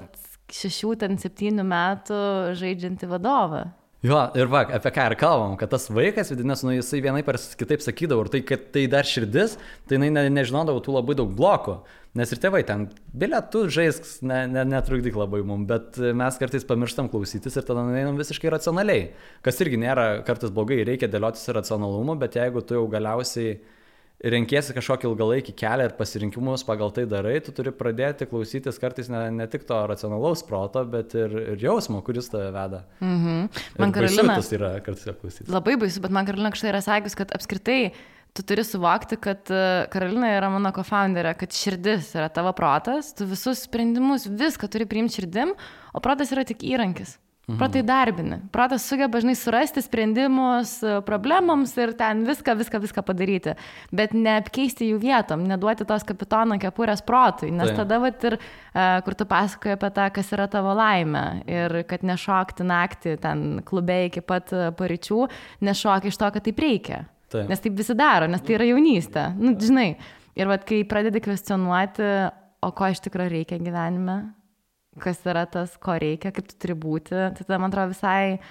6-7 metų žaidžiantį vadovą. Jo, ir va, apie ką ir kalbam, kad tas vaikas, vidinės, jisai vienaip ar kitaip sakydavo, ir tai, kad tai dar širdis, tai jinai nežinodavo tų labai daug blokų, nes ir tėvai ten, bilietų žaisk, netrukdyk labai mum, bet mes kartais pamirštam klausytis ir tada einam visiškai racionaliai, kas irgi nėra kartais blogai, reikia dėliotis ir racionalumu, bet jeigu tu jau galiausiai renkiesi kažkokį ilgalaikį kelią ir pasirinkimus pagal tai darai, tu turi pradėti klausytis kartais ne tik to racionalaus proto, bet ir jausmo, kuris tave veda. Man Karolina, tas yra kartais klausytis. Labai baisu, bet man Karolina kažtai yra sakius, kad apskritai tu turi suvokti, kad Karolina yra mano co-founderė, kad širdis yra tavo protas, tu visus sprendimus, viską turi priimti širdim, o protas yra tik įrankis. Protai darbini. Protas sugeba žinai surasti sprendimus problemams ir ten viską padaryti. Bet neapkeisti jų vietom, neduoti tos kapitono kepurės protui. Nes tada vat ir, kur tu pasakoji apie tą, kas yra tavo laimė. Ir kad nešokti naktį ten klube iki pat paryčių, nešokti iš to, kad taip reikia. Nes taip visi daro, nes tai yra jaunystė. Nu, žinai. Ir vat kai pradedi kvestionuoti, o ko iš tikrųjų reikia gyvenime, kas yra tas, ko reikia, kaip tu turi būti, tai tada, man atrodo, visai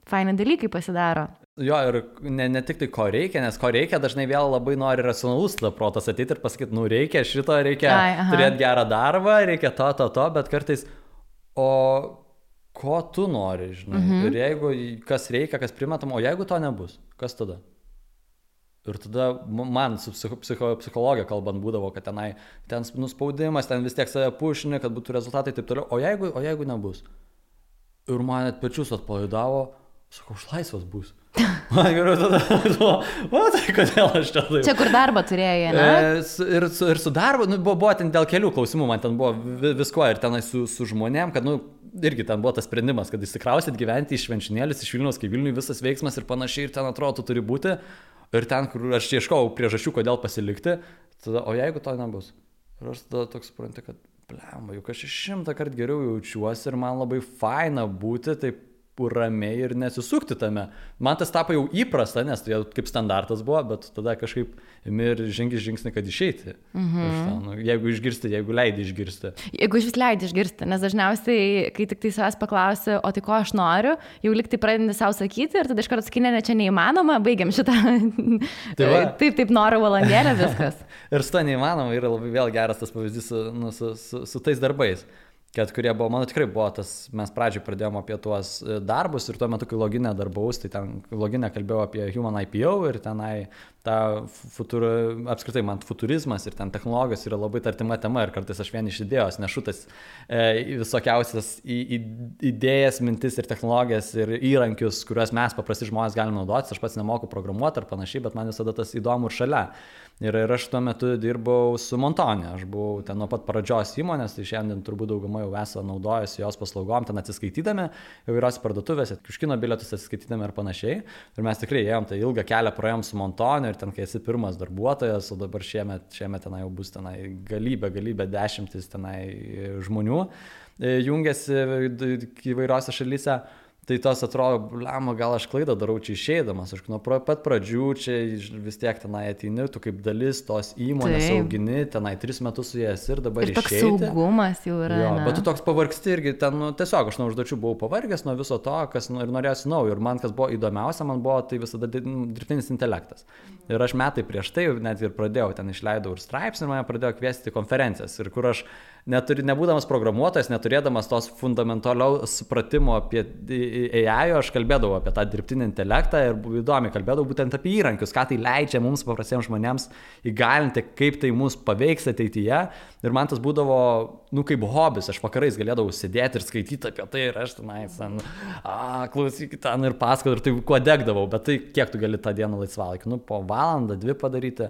faini dalykai pasidaro. Jo, ir ne tik tai ko reikia, nes ko reikia dažnai vėl labai nori racionalus protas ateiti ir pasakyti, nu reikia šito, reikia turėti gerą darbą, reikia to, bet kartais, o ko tu nori, žinai, ir jeigu kas reikia, kas primetam, o jeigu to nebus, kas tada? Ir tada man su psichologija kalbant būdavo, kad ten nuspaudimas, ten vis tiek save pušini, kad būtų rezultatai taip toliau. O jeigu nebus? Ir man net pečius atpalaidavo, sakau, aš laisvas bus. Man geriau tada, tai kodėl aš čia taip. Čia kur darbą turėjai, ne? Ir su darbu, buvo ten dėl kelių klausimų, man ten buvo visko ir tenai su žmonėm, kad, irgi ten buvo tas sprendimas, kad įsikrausit gyventi iš Švenčionėlius, iš Vilniaus, kai Vilniui visas veiksmas ir panašiai, ir ten atrodo, tu turi būti. Ir ten, kur aš ieškau priežasčių, kodėl pasilikti, tada, o jeigu to nebus? Ir aš tada toks suprantu, kad, blemba, juk aš 100 kartų geriau jaučiuosi ir man labai faina būti taip ramiai ir nesisukti tame. Man tas tapo jau įprasta, nes tai kaip standartas buvo, bet tada kažkaip imi ir žengi žingsnį, kad išeiti. Jeigu išgirsti, jeigu leidi išgirsti. Jeigu iš vis leidi išgirsti, nes dažniausiai, kai tik tai savęs paklausi, o tai ko aš noriu, jau liktai pradedi savo sakyti ir tada iš karto sakinė, ne čia neįmanoma, baigiam šitą. Taip, noriu valandėlę, viskas. Ir su to neįmanoma yra labai vėl geras tas pavyzdys su tais darbais. Kad kurie buvo, mano tikrai buvo tas, mes pradžioj pradėjom apie tuos darbus ir tuo metu, kai loginę darbaus, tai ten loginę kalbėjau apie Human IPO ir tenai apskritai man futurizmas ir ten technologijos yra labai artima tema ir kartais aš vien iš idėjos nešutas visokiausias idėjas, mintis ir technologijas ir įrankius, kuriuos mes paprasti žmonės galime naudotis, aš pats nemoku programuoti ar panašiai, bet man visada tas įdomu ir šalia. Ir aš tuo metu dirbau su Montone, aš buvau ten nuo pat pradžios įmonės, tai šiandien turbūt dauguma jau esą naudojasi jos paslaugom, ten atsiskaitydami, įvairios parduotuvėse, kiškino bilietus atsiskaitydami ir panašiai. Ir mes tikrai ėjom tą ilgą kelią, praėjom su Montone ir ten, kai esi pirmas darbuotojas, o dabar šiemet tenai jau bus tenai galybė, dešimtis tenai žmonių jungiasi įvairiose šalyse. Tai tos atrodo, blema, gal aš klaidą darau čia išeidamas, aš nuo pat pradžių čia vis tiek tenai ateini, tu kaip dalis tos įmonės augini, tenai 3 metus su jas ir dabar išeiti. Ir toks saugumas jau yra. Jo, bet tu toks pavargsti irgi, ten tiesiog aš nuo užduočių buvau pavargęs nuo viso to, kas ir norėjusi naujo. Ir man kas buvo įdomiausia, man buvo tai visada dirbtinis intelektas. Ir aš metai prieš tai net ir pradėjau, ten išleidau ir straipsnį ir mane pradėjo kviesti konferencijas. Ir kur aš nebūdamas programuotojas, neturėdamas tos fundamentaliaus supratimo apie AI, aš kalbėdavau apie tą dirbtinį intelektą ir įdomiai kalbėdavau būtent apie įrankius, ką tai leidžia mums paprastiems žmonėms įgalinti, kaip tai mus paveiks ateityje. Ir man tas būdavo, kaip hobis, aš vakarais galėdavau sėdėti ir skaityti apie tai ir aš tenais, klausykit ten ir pasakoti ir tai kuo degdavau, bet tai kiek tu gali tą dieną laisvalaikį, po valandą, 2 padaryti.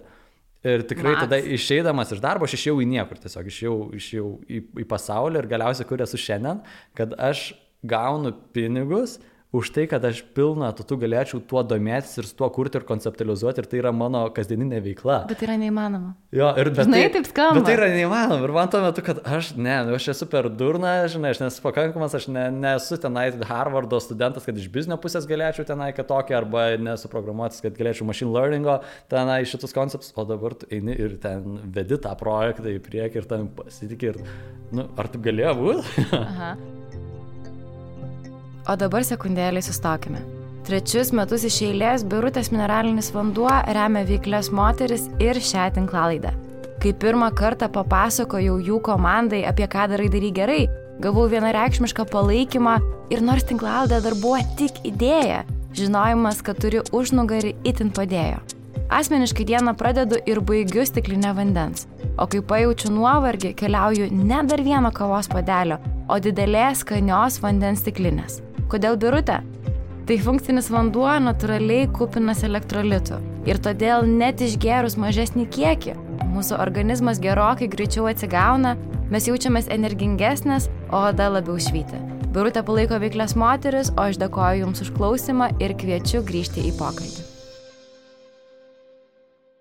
Ir tikrai tada išeidamas iš darbo, aš išėjau į niekur, tiesiog išėjau į pasaulį ir galiausiai kur esu šiandien, kad aš gaunu pinigus už tai, kad aš pilną tu galėčiau tuo domėtis ir su tuo kurti ir konceptualizuoti ir tai yra mano kasdieninė veikla. Bet tai yra neįmanoma. Jo, ir žinai, taip skamba. Bet tai yra neįmanoma ir man tuo metu, kad aš esu per durna, žinai, aš nesu pakankamas, aš nesu tenai Harvardo studentas, kad iš biznio pusės galėčiau tenai kitokį, arba nesu programuotis, kad galėčiau machine learningo tenai šitus konceptus, o dabar tu eini ir ten vedi tą projektą į priekį ir tam pasitikė ir, ar taip galėjo būti? Aha. O dabar sekundėlį sustokime. 3 metus iš eilės Birutės mineralinis vanduo remia veiklias moteris ir šią tinklalaidę. Kai pirmą kartą papasakojau jų komandai, apie ką darai gerai, gavau vienareikšmišką palaikymą ir nors tinklalaidė dar buvo tik idėja, žinojimas, kad turi užnugarį itin padėjo. Asmeniškai dieną pradedu ir baigiu stiklinę vandens, o kai pajaučiu nuovargį, keliauju ne dar vieno kavos puodelio, o didelės skanios vandens stiklinės. Kodėl Birutė? Tai funkcinis vanduo natūraliai kupinas elektrolitų ir todėl net išgėrus mažesnį kiekį, mūsų organizmas gerokai greičiau atsigauna, mes jaučiamės energingesnės, o oda labiau švyti. Birutė palaiko veiklias moteris, o aš dėkoju Jums už klausimą ir kviečiu grįžti į pokalbį.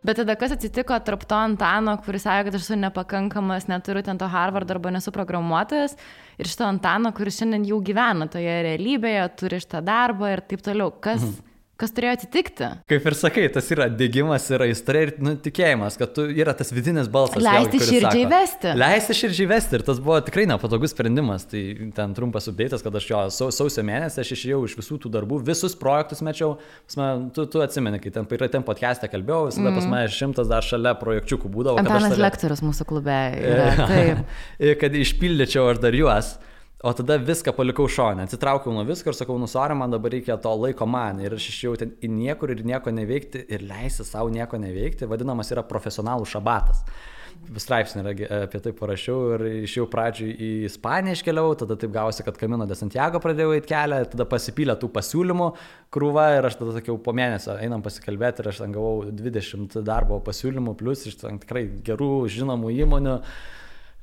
Bet tada kas atsitiko tarp to Antano, kuris sakė, kad aš esu nepakankamas, neturiu ten to Harvardo arba nesu programuotojas, ir šito Antano, kuris šiandien jau gyvena toje realybėje, turi šitą darbą ir taip toliau. Kas turėjo atsitikti? Kaip ir sakai, tas yra dėgymas, yra aistra ir tikėjimas, kad yra tas vidinis balsas. Leisti širdžiai vesti. Leisti širdžiai vesti ir tas buvo tikrai nepatogus sprendimas. Tai ten trumpas updėtas, kad aš sausio mėnesį aš išėjau iš visų tų darbų, visus projektus mečiau. Tu atsimeni, kai ten podcast'e kalbėjau, visada pas mane 100 dar šalia projekčiukų būdavo. Antanas lektorius mūsų klube yra. Taip. Kad išpildyčiau aš dar juos. O tada viską palikau šone, atsitraukiau nuo visko ir sakau, sorry, man dabar reikia to laiko man. Ir aš išėjau ten į niekur ir nieko neveikti ir leisti savo nieko neveikti, vadinamas yra profesionalų šabatas. Straipsnį apie tai parašiau ir išėjau pradžiui į Ispaniją iškeliau, tada taip gavosi, kad Camino de Santiago pradėjau eiti kelią, tada pasipylė tų pasiūlymų krūva ir aš tada sakiau, po mėnesio einam pasikalbėti ir aš ten gavau 20 darbo pasiūlymų, plus iš ten tikrai gerų žinomų įmonių.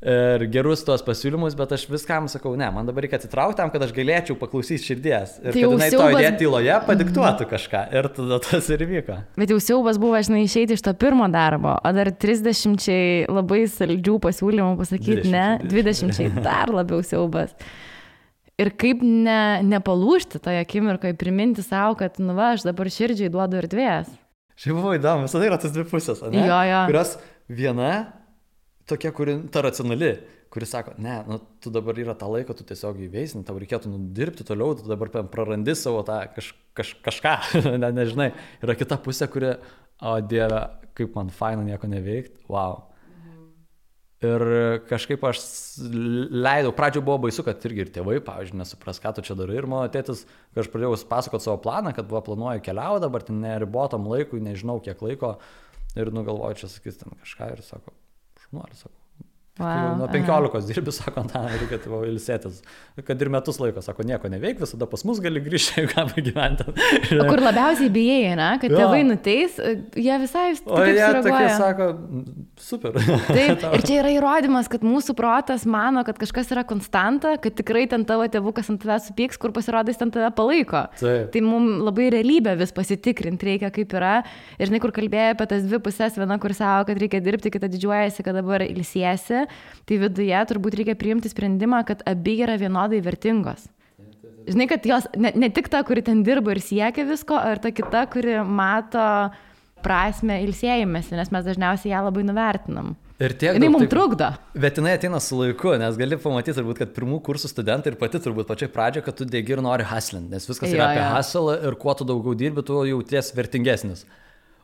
Ir gerus tuos pasiūlymus, bet aš viskam sakau, ne, man dabar reikia atsitraukti tam, kad aš galėčiau paklausyti širdies. Ir tai kad jinai to idėja tyloje padiktuotų kažką. Ir tada tas ir vyko. Bet jau siaubas buvo, išeiti iš to pirmo darbo, o dar 30 labai saldžių pasiūlymų pasakyti, 20 dar labiau siaubas. Ir kaip nepalūžti toje akimirkoje, priminti savo, kad, aš dabar širdžiai duodu erdvės. Šiaip buvo įdomu, visada yra tas dvi pusės, ne? Jo. Kurios viena tokia, ta racionali, kuri sako, ne, tu dabar yra tą laiką, tu tiesiog įveisini, tau reikėtų dirbti toliau, tu dabar prarandi savo tą kažką, nežinai. Yra kita pusė, kuri, o Dieve, kaip man faina nieko neveikti, wow. Ir kažkaip aš leidau, pradžioje buvo baisu, kad irgi ir tėvai, pavyzdžiui, nesupras, ką tu čia darai. Ir mano tėtis, kai aš pradėjau pasakoti savo planą, kad planuoju keliauti, dabar ten neribotam laikui, nežinau kiek laiko, ir nugalvoju, čia sakys ten kažką ir sako, nori, sako. Wow, nuo 15 dirbi, sako, reikia tavo ilsėtis. Kad ir metus laiko, sako, nieko neveik, visada pas mus gali grįžti, jeigu ką pagyventi. O kur labiausiai bijai, ne? Kad tėvai nuteis, jie visai taip sureaguoja. O jie tokie sako, super. Taip, ir čia yra įrodymas, kad mūsų protas mano, kad kažkas yra konstanta, kad tikrai ten tavo tėvukas ant tave supyks, kur pasirodys ten tave palaiko. Taip. Tai mums labai realybę vis pasitikrinti reikia, kaip yra. Ir žinai, kur kalbėjai apie tas dvi pusės, viena, kur savo, kad reikia dirbti, kita didžiuojasi, kad dabar ilsiesi. Tai viduje turbūt reikia priimti sprendimą, kad abi yra vienodai vertingos. Žinai, kad jos ne tik ta, kuri ten dirba ir siekia visko, ar ta kita, kuri mato prasme ilsėjimėsi, nes mes dažniausiai ją labai nuvertinam. Jinai mums trukdo. Bet jinai ateina su laiku, nes gali pamatyti turbūt, kad pirmų kursų studentai ir pati turbūt pačiai pradžioje, kad tu degi ir nori hustlinti, nes viskas yra apie hustle ir kuo tu daugiau dirbi, tu jauties vertingesnis.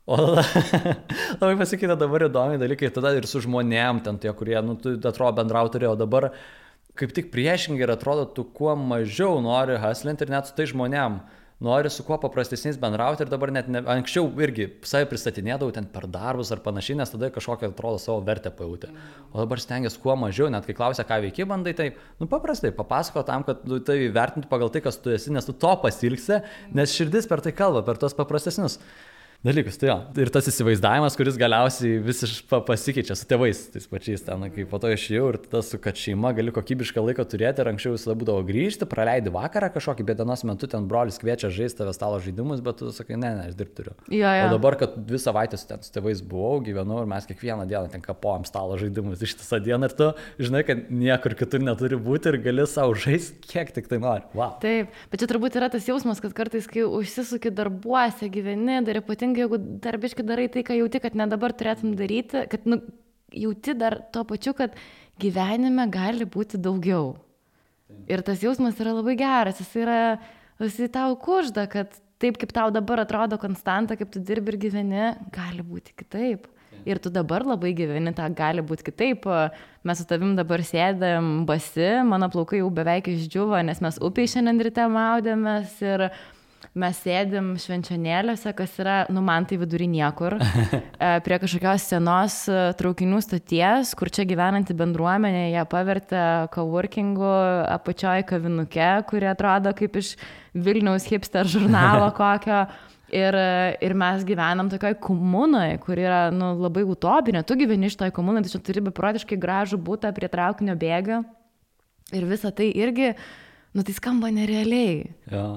O labai pasikeitė dabar įdomi dalykai, tada ir su žmonėm, ten tie, kurie, tu atrodo bendrautori, o dabar kaip tik priešingai ir atrodo, tu kuo mažiau nori hustlinti ir net su tai žmonėm nori su kuo paprastesniais bendrauti ir dabar net anksčiau irgi savai pristatinėdavau ten per darbus ar panašiai, nes tada kažkokią atrodo savo vertę pajutė. O dabar stengiasi kuo mažiau, net kai klausia, ką veiki, bandai, tai paprastai papasako tam, kad tai vertinti pagal tai, kas tu esi, nes tu to pasilgsi, nes širdis per tai kalba, per tos paprastesnius. dalykus. Tai jo. Ir tas įsivaizdavimas, kuris galiausiai visiškai pasikeičia su tėvais, tais pačiais ten, kai po to išėjau ir tas, kad šeima gali kokybišką laiką turėti ir anksčiau visada būdavo grįžti, praleidi vakarą kažkokį, bet dienos metu ten brolis kviečia žaisti tave stalo žaidimus, bet tu sakai, ne, aš dirbti turiu. O dabar, kad 2 savaitės ten su tėvais buvau, gyvenau ir mes kiekvieną dieną ten kapojam stalo žaidimus ištisą dieną ir tu žinai, kad niekur kitur neturi būti ir gali savo žaisti, kiek tik tai nori. Wow. Taip, bet čia turbūt yra tas jausmas, kad kartais, kai užsisuki darbuose, gyveni, dar ypatingai, jeigu darbiškai darai tai, ką jauti, kad ne dabar turėtum daryti, kad jauti dar tuo pačiu, kad gyvenime gali būti daugiau. Ir tas jausmas yra labai geras, jis tau kužda, kad taip, kaip tau dabar atrodo konstanta, kaip tu dirbi ir gyveni, gali būti kitaip. Ir tu dabar labai gyveni, tą gali būti kitaip. Mes su tavim dabar sėdėm basi, mano plaukai jau beveik išdžiuvo, nes mes upiai šiandien ryte maudėmės ir mes sėdim švenčionėliuose, kas yra, man tai vidury niekur, prie kažkokios senos traukinių stoties, kur čia gyvenanti bendruomenė, jie pavertė coworkingu apačioj kavinuke, kuri atrodo kaip iš Vilniaus hipster žurnalo kokio. Ir mes gyvenam tokioj komunoj, kur yra labai utopinė. Tu gyveni iš toj komunai, tai čia turi beprotiškai gražų butą prie traukinio bėgio. Ir visa tai irgi, tai skamba nerealiai. Jo.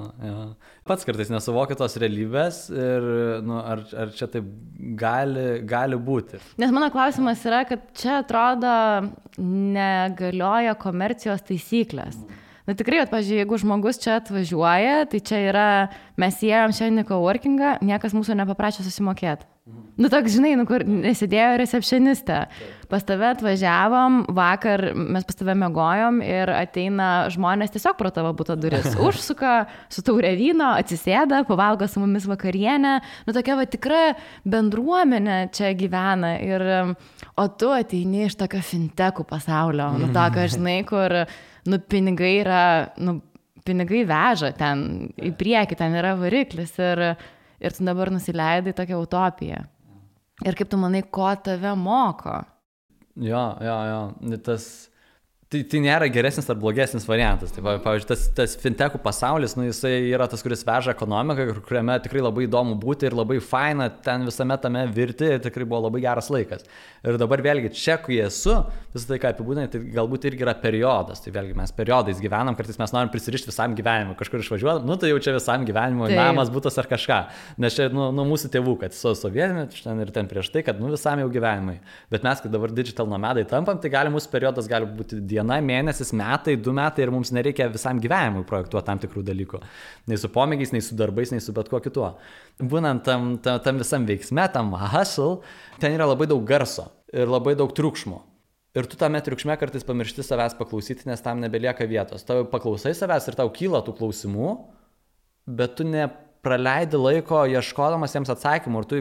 Pats kartais nesuvokia tos realybės ir ar čia taip gali būti. Nes mano klausimas yra, kad čia atrodo negalioja komercijos taisyklės. Tikrai, pavyzdžiui, jeigu žmogus čia atvažiuoja, tai čia yra, mes įėjom šiandien į coworkingą, niekas mūsų nepaprašė susimokėti. Toks, žinai, kur nesėdėjo recepcionistė. Pas tave atvažiavom, vakar mes pas tave mėgojom ir ateina žmonės tiesiog pro tavo buto duris. Užsuka su taurė vyno, atsisėda, pavalgo su mumis vakarienę. Tokia tikra bendruomenė čia gyvena. O tu ateini iš tokio fintechų pasaulio. Tokio, žinai, kur pinigai yra, pinigai veža ten į priekį, ten yra variklis ir tu dabar nusileidai tokią utopiją. Ir kaip tu manai, ko tave moko? Jo. Tai nėra geresnis ar blogesnis variantas. Tai, pavyzdžiui, tas fintechų pasaulis, jisai yra tas, kuris veža ekonomiką, kuriame tikrai labai įdomu būti ir labai faina ten visame tame virti ir tikrai buvo labai geras laikas. Ir dabar vėlgi čia, kai esu, visą tai, ką apibūdinai, tai galbūt irgi yra periodas. Tai vėlgi mes periodais gyvenam, kartais mes norim prisirišti visam gyvenimui, kažkur išvažiuoti, tai jau čia visam gyvenimui, namas, butas ar kažką. Nes čia nuo mūsų tėvų, kad su sovietmečiu ten ir ten prieš tai, kad visam jau gyvenimui. Bet mes, kai dabar digital nomadai tampam, tai mūsų periodas gali būti diena, mėnesis, metai, 2 metai ir mums nereikia visam gyvenimui projektuoti tam tikrų dalykų. Nei su pomėgiais, nei su darbais, nei su bet kuo kituo. Būnant tam visam veiksme, tam hustle, ten yra labai daug garso ir labai daug triukšmo. Ir tu tame triukšme kartais pamiršti savęs paklausyti, nes tam nebelieka vietos. Tau paklausai savęs ir tau kyla tų klausimų, bet tu nepraleidi laiko ieškodamas jiems atsakymų. Ir tu,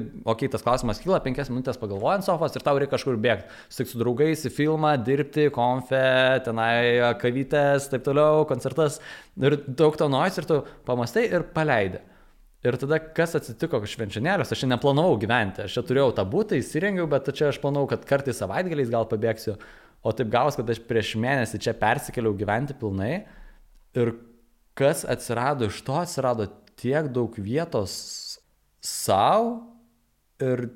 tas klausimas kyla, 5 minutės pagalvoji ant sofos ir tau reikia kažkur bėgti. Sutik su draugais į filmą, dirbti, konfe, tenai kavytės, taip toliau, koncertas. Ir daug to noise ir tu pamastai ir paleidi. Ir tada, kas atsitiko švenčionėliuose, aš čia neplanavau gyventi. Aš čia turėjau tą butą, įsirengiau, bet čia aš planavau, kad kartais savaitgaliais gal pabėgsiu. O taip gavos, kad aš prieš mėnesį čia persikėliau gyventi pilnai. Ir kas atsirado iš to, atsirado tiek daug vietos savo ir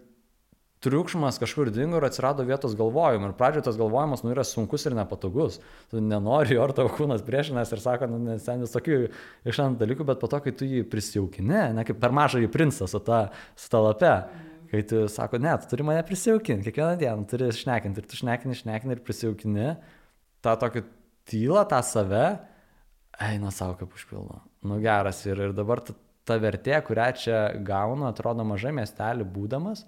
triukšmas kažkur dingo ir atsirado vietos galvojimui. Ir pradžioje tas galvojimas yra sunkus ir nepatogus. Tu nenori, ar tavo kūnas priešinas ir sako, nes ten visokių išant dalykų, bet po to, kai tu jį prisijaukini, kaip per mažąjį princą su ta lape, kai tu sako, ne, tu turi mane prisijaukinti, kiekvieną dieną turi šnekinti ir tu šnekini ir prisijaukini tą tokį tylą, tą save, eina savo kaip užpildo. Geras ir dabar ta vertė, kurią čia gaunu, atrodo mažai miestelį būdamas,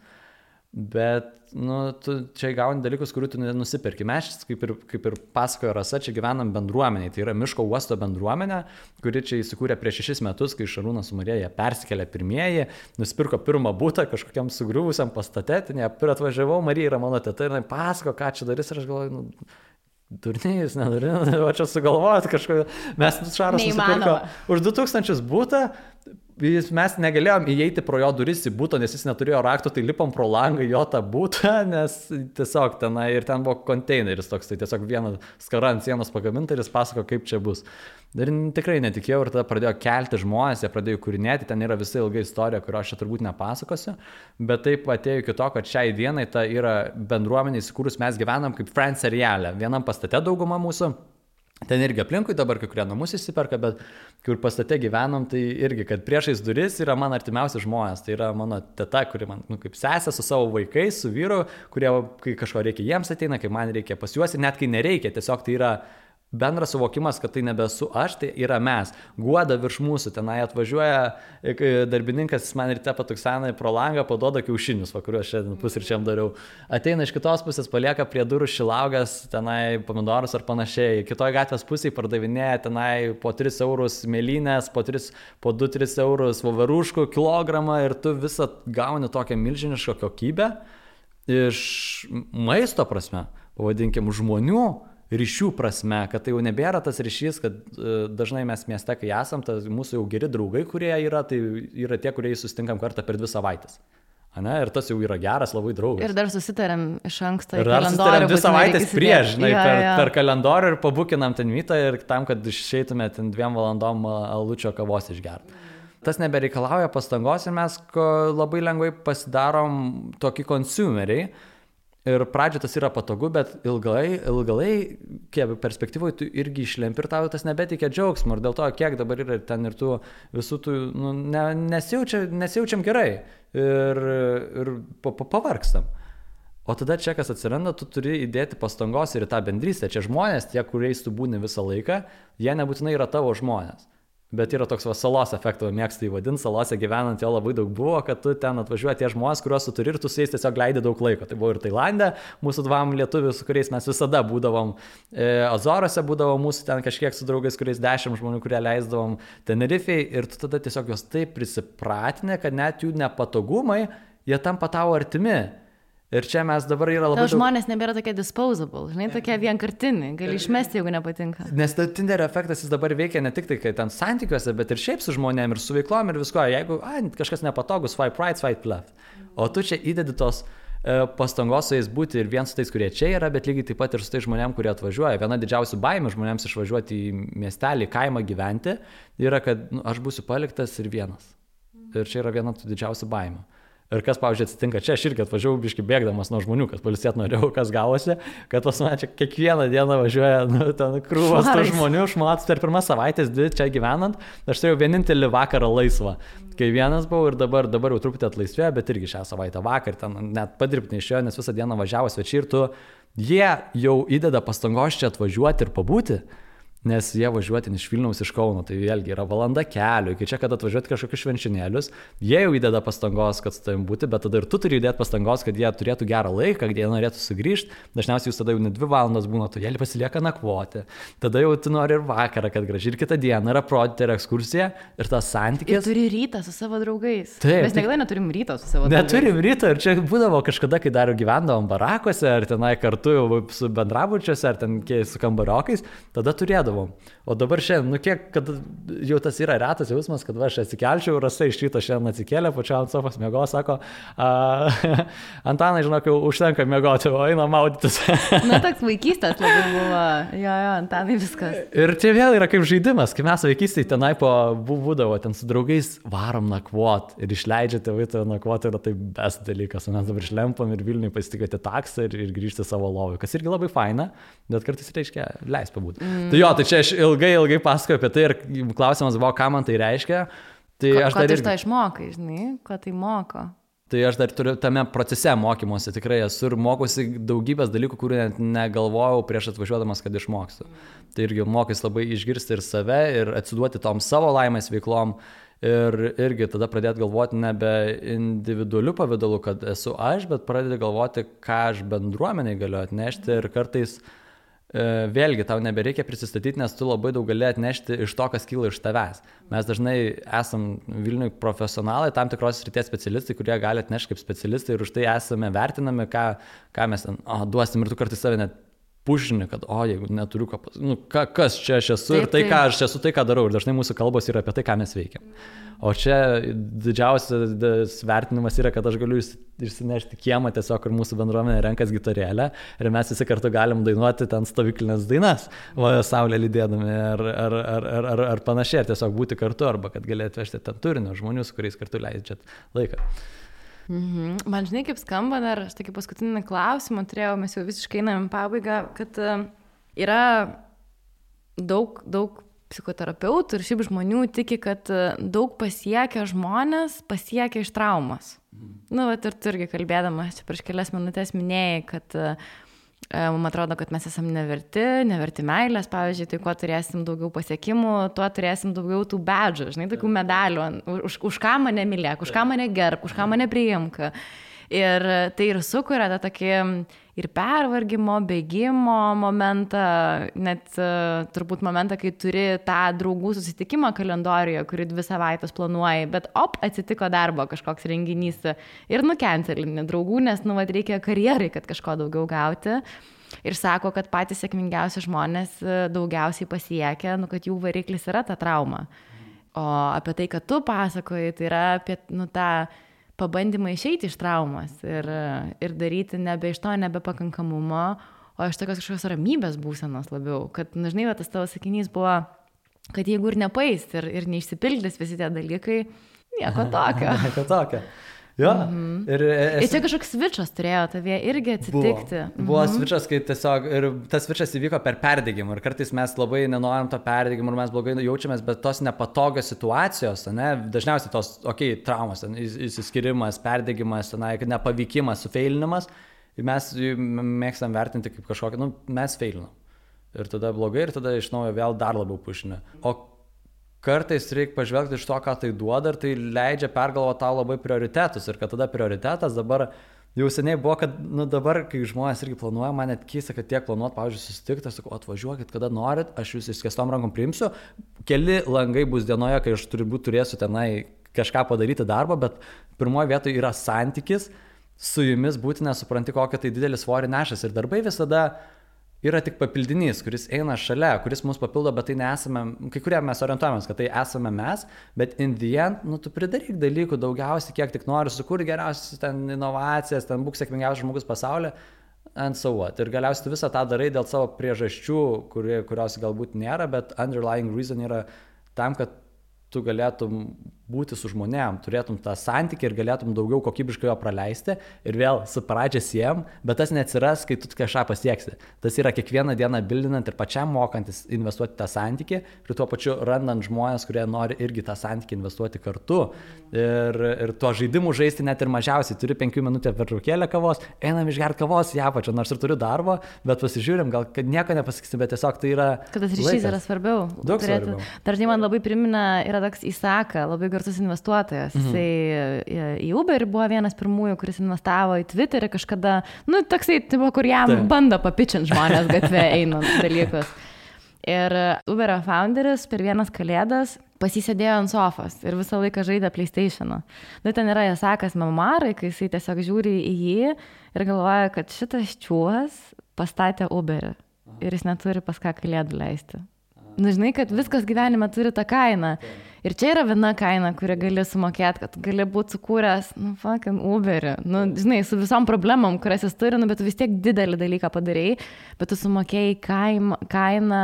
bet tu čia gauni dalykus, kurių tu nusipirki. Mes, kaip ir pasakojo Rasa, čia gyvenam bendruomeniai. Tai yra miško uosto bendruomenė, kuri čia įsikūrė prieš 6 metus, kai Šarūnas su Marija persikėlė pirmieji, nusipirko pirmą butą kažkokiam sugriuvusiam pastate. Ir atvažiavau, Marija yra mano teta ir jinai pasako, ką čia darys ir aš galvoju, durnėjus, nedurnėjus, o čia sugalvojot kažko. Mes Šaras nusipirko už 2000 butą, mes negalėjom įeiti pro jo duris į būtą, nes jis neturėjo rakto, tai lipom pro langą jo tą būtą, nes tiesiog tenai ir ten buvo konteineris toks, tai tiesiog vieną skarą ant sienos pagaminta ir jis pasako, kaip čia bus. Ir tikrai netikėjau ir tada pradėjo kelti žmonės, jie pradėjo kūrinėti, ten yra visa ilga istorija, kurio aš čia turbūt nepasakosiu, bet taip atėjo iki to, kad šiai dienai ta yra bendruomenė įsikūrus, mes gyvenam kaip Friends seriale, vienam pastate dauguma mūsų. Ten irgi aplinkui dabar kai kurie namus įsiperka, bet kur pastate gyvenam, tai irgi, kad priešais duris yra mano artimiausi žmonės. Tai yra mano teta, kuri man kaip sesė su savo vaikais, su vyru, kurie, kai kažko reikia, jiems ateina, kai man reikia pas juos ir net kai nereikia, tiesiog tai yra bendras suvokimas, kad tai nebesu aš, tai yra mes. Guoda virš mūsų, tenai atvažiuoja darbininkas, jis man ryte patuksena pro langą, paduoda kiaušinius, kuriuos šiandien pusryčiam dariau. Ateina iš kitos pusės, palieka prie durų šilaugas, tenai pomidorus ar panašiai. Kitoje gatvės pusėje pardavinėja tenai po 3 eurus mėlynės, po 2-3 eurus voveruškų kilogramą ir tu visą gauni tokią milžinišką kokybę iš maisto prasme, pavadinkim, žmonių ryšių prasme, kad tai jau nebėra tas ryšys, kad dažnai mes mieste, kai esam, mūsų jau geri draugai, kurie yra, tai yra tie, kurie susitinkam kartą per 2 savaitės. Ane? Ir tas jau yra geras labai draugas. Ir dar susitarėm iš anksto į kalendorių. Ir dar susitarėm 2 savaitės prieš, žinai, per kalendorių ir pabukinam ten mytą ir tam, kad išeitume ten 2 valandom alučio kavos išgerti. Tas nebereikalauja pastangos ir mes labai lengvai pasidarom tokį consumeriai. Ir pradžio tas yra patogu, bet ilgalai perspektyvoje tu irgi išlempi ir tau tas nebeteikia džiaugsmo. Ir dėl to, kiek dabar yra ten ir tų visų tų, nesijaučiam gerai ir pavargstam. O tada čia, kas atsiranda, tu turi įdėti pastangos ir į tą bendrystę. Čia žmonės, tie, kuriais tu būni visą laiką, jie nebūtinai yra tavo žmonės. Bet yra toks salos efektas, mėgstu įvadinti, salose gyvenant jo labai daug buvo, kad tu ten atvažiuoji tie žmonės, kuriuos tu turi ir tu su jais tiesiog leidi daug laiko. Tai buvo ir Tailande, mūsų 2 lietuvių, su kuriais mes visada būdavom, Azoruose būdavom mūsų ten kažkiek su draugais, kuriais 10 žmonių, kurie leisdavom Tenerifei ir tu tada tiesiog juos taip prisipratinė, kad net jų nepatogumai, jie tampa tavo artimi. Ir čia mes dabar yra labai... Žmonės nebėra tokie disposable, žinai, tokie vienkartiniai, gali išmesti, jeigu nepatinka. Nes Tinder efektas jis dabar veikia ne tik tai, kai ten santykiuose, bet ir šiaip su žmonėm, ir su veiklom, ir visko. Jeigu kažkas nepatogus, swipe right, swipe left. O tu čia įdedi tos pastangos su jais būti ir vien su tais, kurie čia yra, bet lygiai taip pat ir su tais žmonėm, kurie atvažiuoja. Viena didžiausių baimių žmonėms išvažiuoti į miestelį, kaimą gyventi, yra, kad aš būsiu paliktas ir vienas. Ir čia yra viena tų didžiausių baimių. Ir kas, pavyzdžiui, atsitinka čia, aš irgi atvažiavau biškai bėgdamas nuo žmonių, kad pailsėt norėjau, kas gavosi, kad pas mane čia kiekvieną dieną važiuoja ten krūvas tų žmonių, šmats per 1 savaitės 2 čia gyvenant, aš turėjau vienintelį vakarą laisvą. Kai vienas buvau ir dabar jau truputį atlaisvėjo, bet irgi šią savaitę vakar ten net padirbti neišėjo, nes visą dieną važiavo svečiai ir jie jau įdeda pastangos čia atvažiuoti ir pabūti. Nes jie važiuoti iš Vilniaus, iš Kauno, tai vėlgi yra valanda kelio, iki čia, kad atvažiuoti kažkokius švenčionėlius, jie jau įdeda pastangos, kad su tavim būti, bet tada ir tu turi įdėti pastangos, kad jie turėtų gerą laiką, kad jie norėtų sugrįžti, dažniausiai jūs tada jau ne 2 valandas būna, tu jie pasilieka nakvoti, tada jau tu nori ir vakarą, kad gražiai ir kitą dieną yra aprodyti ir ekskursija ir tas santykis. Ir turi rytą su savo draugais. Taip, mes niekada neturim ryto su savo draugais. Neturim ryto ir čia būdavo kažkada, kai dar gyvendavom barakuose, ar tenai kartu su bendrabučiuose, ar ten su kambariokais, tada turėdavom. O dabar šiandien, kiek, kad jau tas yra retas jausmas, kad aš atsikelčiau, Rasa iš ryto šiandien atsikėlė, pačiau ant sofos miego, sako, Antanai, žinok, jau užtenka miegoti, o eina maudytis. Na, toks vaikystės labai buvo, jo, Antanai viskas. Ir čia vėl yra kaip žaidimas, kai mes vaikystėje tenai būdavo, ten su draugais varom nakvot ir išleidžia tėvai tave nakvoti, yra tai best dalykas, o mes dabar išlempam ir Vilniui pasitikėti taksą ir grįžti savo lovui, kas irgi labai faina, bet kartais reiškia leis pabūti. Tai jo, tai čia aš ilgai pasakoju apie tai ir klausimas buvo, ką man tai reiškia. Tai aš dar iš to išmokai, žinai, ko tai moko. Tai aš dar turiu tame procese mokymosi, tikrai esu ir mokusi daugybės dalykų, kurių net negalvojau prieš atvažiuodamas, kad išmoksiu. Tai irgi mokys labai išgirsti ir save ir atsiduoti tom savo laimės veiklom ir irgi tada pradėti galvoti nebe individualiu pavidalu, kad esu aš, bet pradėti galvoti, ką aš bendruomeniai galiu atnešti ir kartais vėlgi, tau nebereikia prisistatyti, nes tu labai daug gali atnešti iš to, kas kyla iš tavęs. Mes dažnai esam Vilniui profesionalai, tam tikros srities specialistai, kurie gali atnešti kaip specialistai ir už tai esame vertinami, ką mes ten duosim ir tu kartais save net pušini, kad, jeigu neturiu kas čia aš esu ir tai, ką aš esu, tai, ką darau. Ir dažnai mūsų kalbos yra apie tai, ką mes veikiam. O čia didžiausias vertinimas yra, kad aš galiu išsinešti kiemą tiesiog, kur mūsų bendruomenė renkas gitarėlę ir mes visi kartu galim dainuoti ten stovyklinės dainas, saulė lydėdami ar panašiai, ar tiesiog būti kartu, arba kad gali atvežti ten turinio žmonių, su kuriais kartu leidžiat laiką. Man žinai, kaip skamba dar, aš tokį paskutinį klausimą turėjau, mes jau visiškai einam į pabaigą, kad yra daug psichoterapeutų ir šiaip žmonių tiki, kad daug pasiekia žmonės, pasiekia iš traumas. Ir tu irgi kalbėdamas čia prieš kelias minutės minėjai, kad man atrodo, kad mes esam neverti meilės, pavyzdžiui, tai kuo turėsim daugiau pasiekimų, tuo turėsim daugiau tų bedžų, žinai, tokių medalių, už ką mane mylėk, už ką mane gerb, už ką mane priimk. Ir tai ir sukuria tą tokį ir pervargimo, bėgimo momentą, net turbūt momentą, kai turi tą draugų susitikimą kalendorijoje, kurį 2 savaitės planuoji, bet atsitiko darbo kažkoks renginys ir nukencelinį draugų, nes reikia karjerai, kad kažko daugiau gauti. Ir sako, kad patys sėkmingiausi žmonės daugiausiai pasiekia, kad jų variklis yra ta trauma. O apie tai, kad tu pasakoji, tai yra apie tą pabandymą išeiti iš traumas ir daryti nebe iš to nebepakankamumo, o iš tokios kažkokios ramybės būsenos labiau. Kad, žinai, tas tavo sakinys buvo, kad jeigu ir nepais ir neišsipildys visi tie dalykai, nieko tokio. Nieko tokio. Jo. Ir čia kažkoks svičas turėjo tavie irgi atsitikti. Buvo svičas, kai tiesiog, ir tas svičas įvyko per perdegimą. Ir kartais mes labai nenorim to perdegimo ir mes blogai jaučiamės, bet tos nepatogios situacijos, dažniausiai tos, traumos, įsiskirimas, perdegimas, nepavykimas, sufeilinimas, mes mėgstam vertinti kaip kažkokį, mes feilinam. Ir tada blogai, ir tada iš naujo vėl dar labiau pušinė. O kartais reikia pažvelgti iš to, ką tai duoda, ir tai leidžia pergalvoti tau labai prioritetus. Ir kad tada prioritetas dabar jau seniai buvo, kad dabar, kai žmonės irgi planuoja, man net keista, kad tiek planuot, pavyzdžiui, susitikti, aš sakau, atvažiuokit, kada norit, aš jūs išskėstom rankom priimsiu. Keli langai bus dienoje, kai aš turėsiu tenai kažką padaryti darbą, bet pirmoje vietoje yra santykis, su jumis būti nesupranti, kokią tai didelį svorį nešas. Ir darbai visada yra tik papildinys, kuris eina šalia, kuris mus papildo, bet tai nesame, kai kurie mes orientuojamės, kad tai esame mes, bet in the end, tu pridaryk dalykų daugiausiai, kiek tik nori, sukur geriausias ten inovacijas, ten būk sėkmingiausias žmogus pasaulyje, and so what. Ir galiausiai tu visą tą darai dėl savo priežasčių, kurios galbūt nėra, bet underlying reason yra tam, kad tu galėtum būti su žmonėm, turėtum tą santykį ir galėtum daugiau kokybiškai jo praleisti ir vėl su pradžia siejam, bet tas neatsiras, kai tu kažką pasieksi. Tas yra kiekvieną dieną bildinant ir pačiam mokantis investuoti tą santykį ir tuo pačiu randant žmonės, kurie nori irgi tą santykį investuoti kartu. Ir tuo žaidimu žaisti net ir mažiausiai. Turi 5 minutę pertraukėlę kavos, einam išgerti kavos į apačią, nors ir turiu darbo, bet pasižiūrim, gal kad nieko nepasakysim, bet tiesiog tai yra kad tas ryšys yra svarbiau. Daug svarbiau. Dažnai man labai primena, yra toks Isaka, labai garsus investuotojas. Jisai į Uber buvo vienas pirmųjų, kuris investavo į Twitterį kažkada, toksai, kur jam bando papičinti žmonės gatvė einant dalykus. Ir Uberio founderis per vienas kalėdas pasisėdėjo ant sofos ir visą laiką žaidė PlayStation'ą. Ten yra Isakas memoarai, kai jisai tiesiog žiūri į jį ir galvoja, kad šitas čiūvas pastatė Uberį ir jis neturi pas ką kalėdų leisti. Žinai, kad viskas gyvenime turi tą kainą. Ir čia yra viena kaina, kurią gali sumokėti, kad gali būti sukūręs, fucking Uberį. Žinai, su visom problemom, kurias jis turi, bet tu vis tiek didelį dalyką padarėjai, bet tu sumokėjai kainą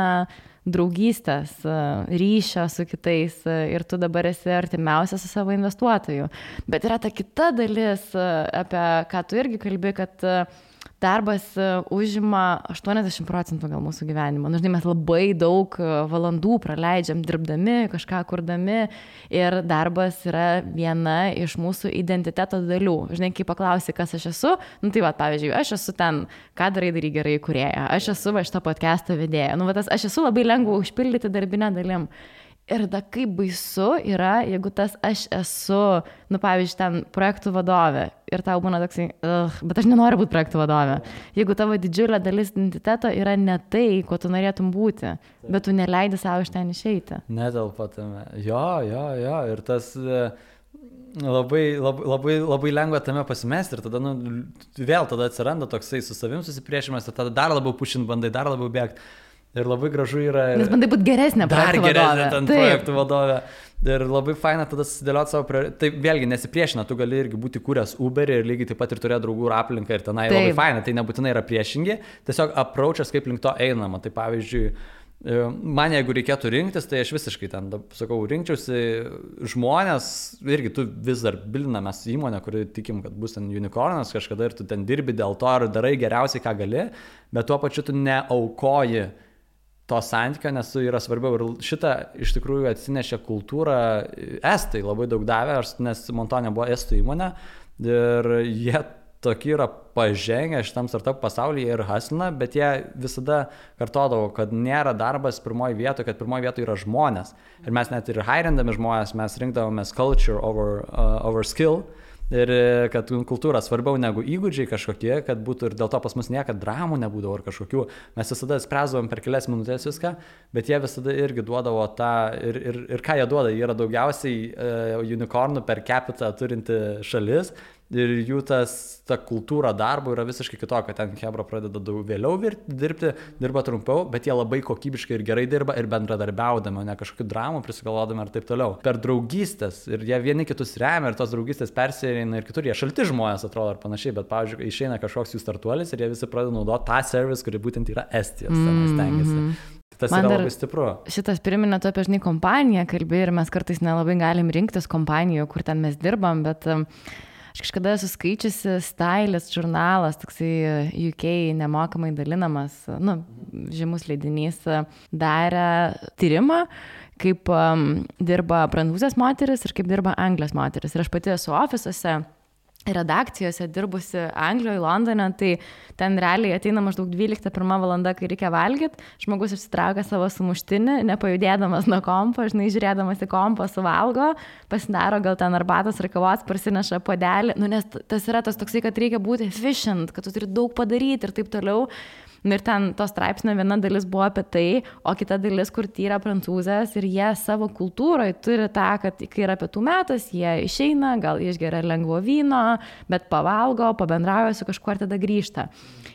draugystės, ryšio su kitais ir tu dabar esi artimiausias su savo investuotoju. Bet yra ta kita dalis, apie ką tu irgi kalbi, kad darbas užima 80% gal mūsų gyvenimo. Žinai, mes labai daug valandų praleidžiam dirbdami, kažką kurdami ir darbas yra viena iš mūsų identiteto dalių. Žinai, kai paklausi, kas aš esu, tai pavyzdžiui, aš esu ten, ką darai gerai kūrėja, aš esu šitą podcastą vedėja. Aš esu labai lengva užpildyti darbinę dalim. Ir da kaip baisu yra, jeigu tas aš esu, pavyzdžiui, ten projektų vadovė ir tau būna toksai, bet aš nenoriu būti projektų vadovė. Jeigu tavo didžiulė dalis identiteto yra ne tai, ko tu norėtum būti, bet tu neleidi savo iš ten išeiti. Netelpa tame. Jo. Ir tas, labai lengva tame pasimesti ir tada, vėl tada atsiranda toksai su savim susipriešimas ir tada dar labiau pušint bandai, dar labiau bėgti. Ir labai gražu yra... Nes bandai būti geresnė projektų vadovė. Dar geresnė ten projektų vadovė. Ir labai faina tada susidėlioti savo... Tai vėlgi nesipriešina, tu gali irgi būti kūręs Uberį ir lygiai taip pat ir turėti draugų ir aplinką ir tenai labai faina. Tai nebūtinai yra priešingi, tiesiog approachas, kaip link to einama. Tai pavyzdžiui, man jeigu reikėtų rinktis, tai aš visiškai ten, sakau, rinkčiausi žmonės, irgi tu vis dar bilinamės įmonę, kuri tikim, kad bus ten unicornas kažkada ir tu ten dirbi dėl to ir darai geriausiai, ką gali, bet tuo pačiu tu neaukoji to santykio, nes yra svarbiau ir šitą iš tikrųjų atsinešė kultūrą, estai labai daug davė, nes Montonė buvo estų įmonė ir jie tokie yra pažengę šitam startup pasaulyje ir haslina, bet jie visada kartodavo, kad nėra darbas pirmoji vietoje, kad pirmoji vietoje yra žmonės. Ir mes net ir hairindami žmonės, mes rinkdavomės culture over skill. Ir kad kultūra svarbiau negu įgūdžiai kažkokie, kad būtų ir dėl to pas mus niekad dramų nebūdavo ar kažkokių. Mes visada spręsdavom per kelias minutės viską, bet jie visada irgi duodavo tą, ir ką jie duoda, jie yra daugiausiai unicornų per capita turinti šalis. Ir jų ta kultūra darbo yra visiškai kitokia, ten Hebra pradeda daug vėliau dirbti, dirba trumpiau, bet jie labai kokybiškai ir gerai dirba ir bendradarbiaudami, ne kažkokių dramų prisigalvodami ir taip toliau. Per draugystės ir jie vieni kitus remia ir tos draugystės persieina ir kitur, jie šalti žmonės atrodo ar panašiai, bet pavyzdžiui, išeina kažkoks jų startuolis ir jie visi pradeda naudoti tą service, kuri būtent yra Estijos, stengiasi. Tas man yra labai stipru. Šitas priminė tu apie kompaniją kalbė ir mes kartais nelabai galim rinktis kompanijų, kur ten mes dirbam, bet... Aš kažkada esu skaičiusi Stylist žurnalas, toksai UK nemokamai dalinamas, žymus leidinys, darė tyrimą, kaip dirba prancūzės moteris ir kaip dirba Anglijos moteris. Ir aš pati esu ofisuose, redakcijose dirbusi Anglijoje, Londone, tai ten realiai ateina maždaug 12:01 valanda, kai reikia valgyti, žmogus išsitraukia savo sumuštinį, nepajudėdamas nuo kompo, žiūrėdamas į kompą suvalgo, pasidaro gal ten arbatos ar kavos, parsineša puodelį, nes tas yra tas toksai, kad reikia būti efficient, kad tu turi daug padaryti ir taip toliau. Ir ten to straipsnio viena dalis buvo apie tai, o kita dalis, kur tyra prancūzės ir jie savo kultūroje turi tą, kad kai yra pietų metas, jie išeina, gal išgeria lengvo vyno, bet pavalgo, pabendrauja su kažkuo ir tada grįžta.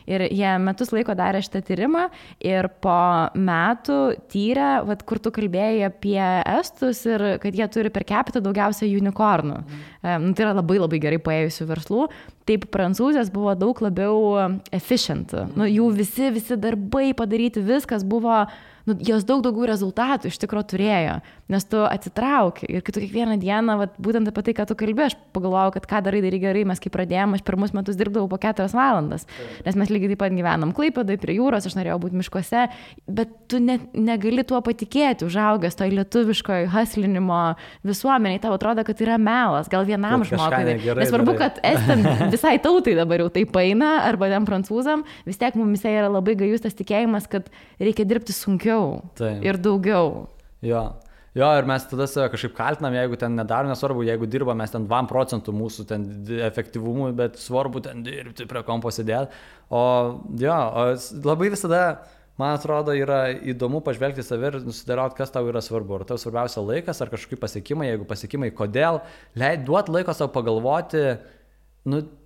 Ir jie metus laiko darė šitą tyrimą ir po metų tyrė, kur tu kalbėjai apie estus ir kad jie turi per capita daugiausia unicornų. Tai yra labai labai gerai paėjusių verslų. Taip prancūzės buvo daug labiau efficient. Jų visi darbai padaryti, viskas buvo, jos daug daugiau rezultatų iš tikro turėjo, nes tu atsitrauki ir kai tu kiekvieną dieną, būtent apie tai, ką tu kalbė, aš pagalvojau, kad ką darai gerai, mes kai pradėjome, aš pirmus metus dirbdavau po 4 valandas, nes mes lygiai taip pat gyvenam Klaipėdoj prie jūros, aš norėjau būti miškuose, bet tu negali tuo patikėti, užaugęs toj lietuviškoj haslinimo visuomeniai, tau atrodo, kad yra melas, gal vienam žmogui. Nesvarbu, kad estam visai tautai dabar jau taip eina, arba ten prancūzam, vis tiek mumise yra labai gajus tas tikėjimas, kad reikia dirbti sunkiau. Taip. Ir daugiau. Jo, ir mes tada save kažkaip kaltinam, jeigu ten nedarom, nesvarbu, jeigu dirba mes ten 2% mūsų ten efektyvumui, bet svarbu ten dirbti prie kompo sėdėti. O labai visada, man atrodo, yra įdomu pažvelgti save ir nusidėlioti, kas tau yra svarbu. Ar tau svarbiausia laikas, ar kažkokie pasiekimai, jeigu pasiekimai, kodėl, duot laiko savo pagalvoti,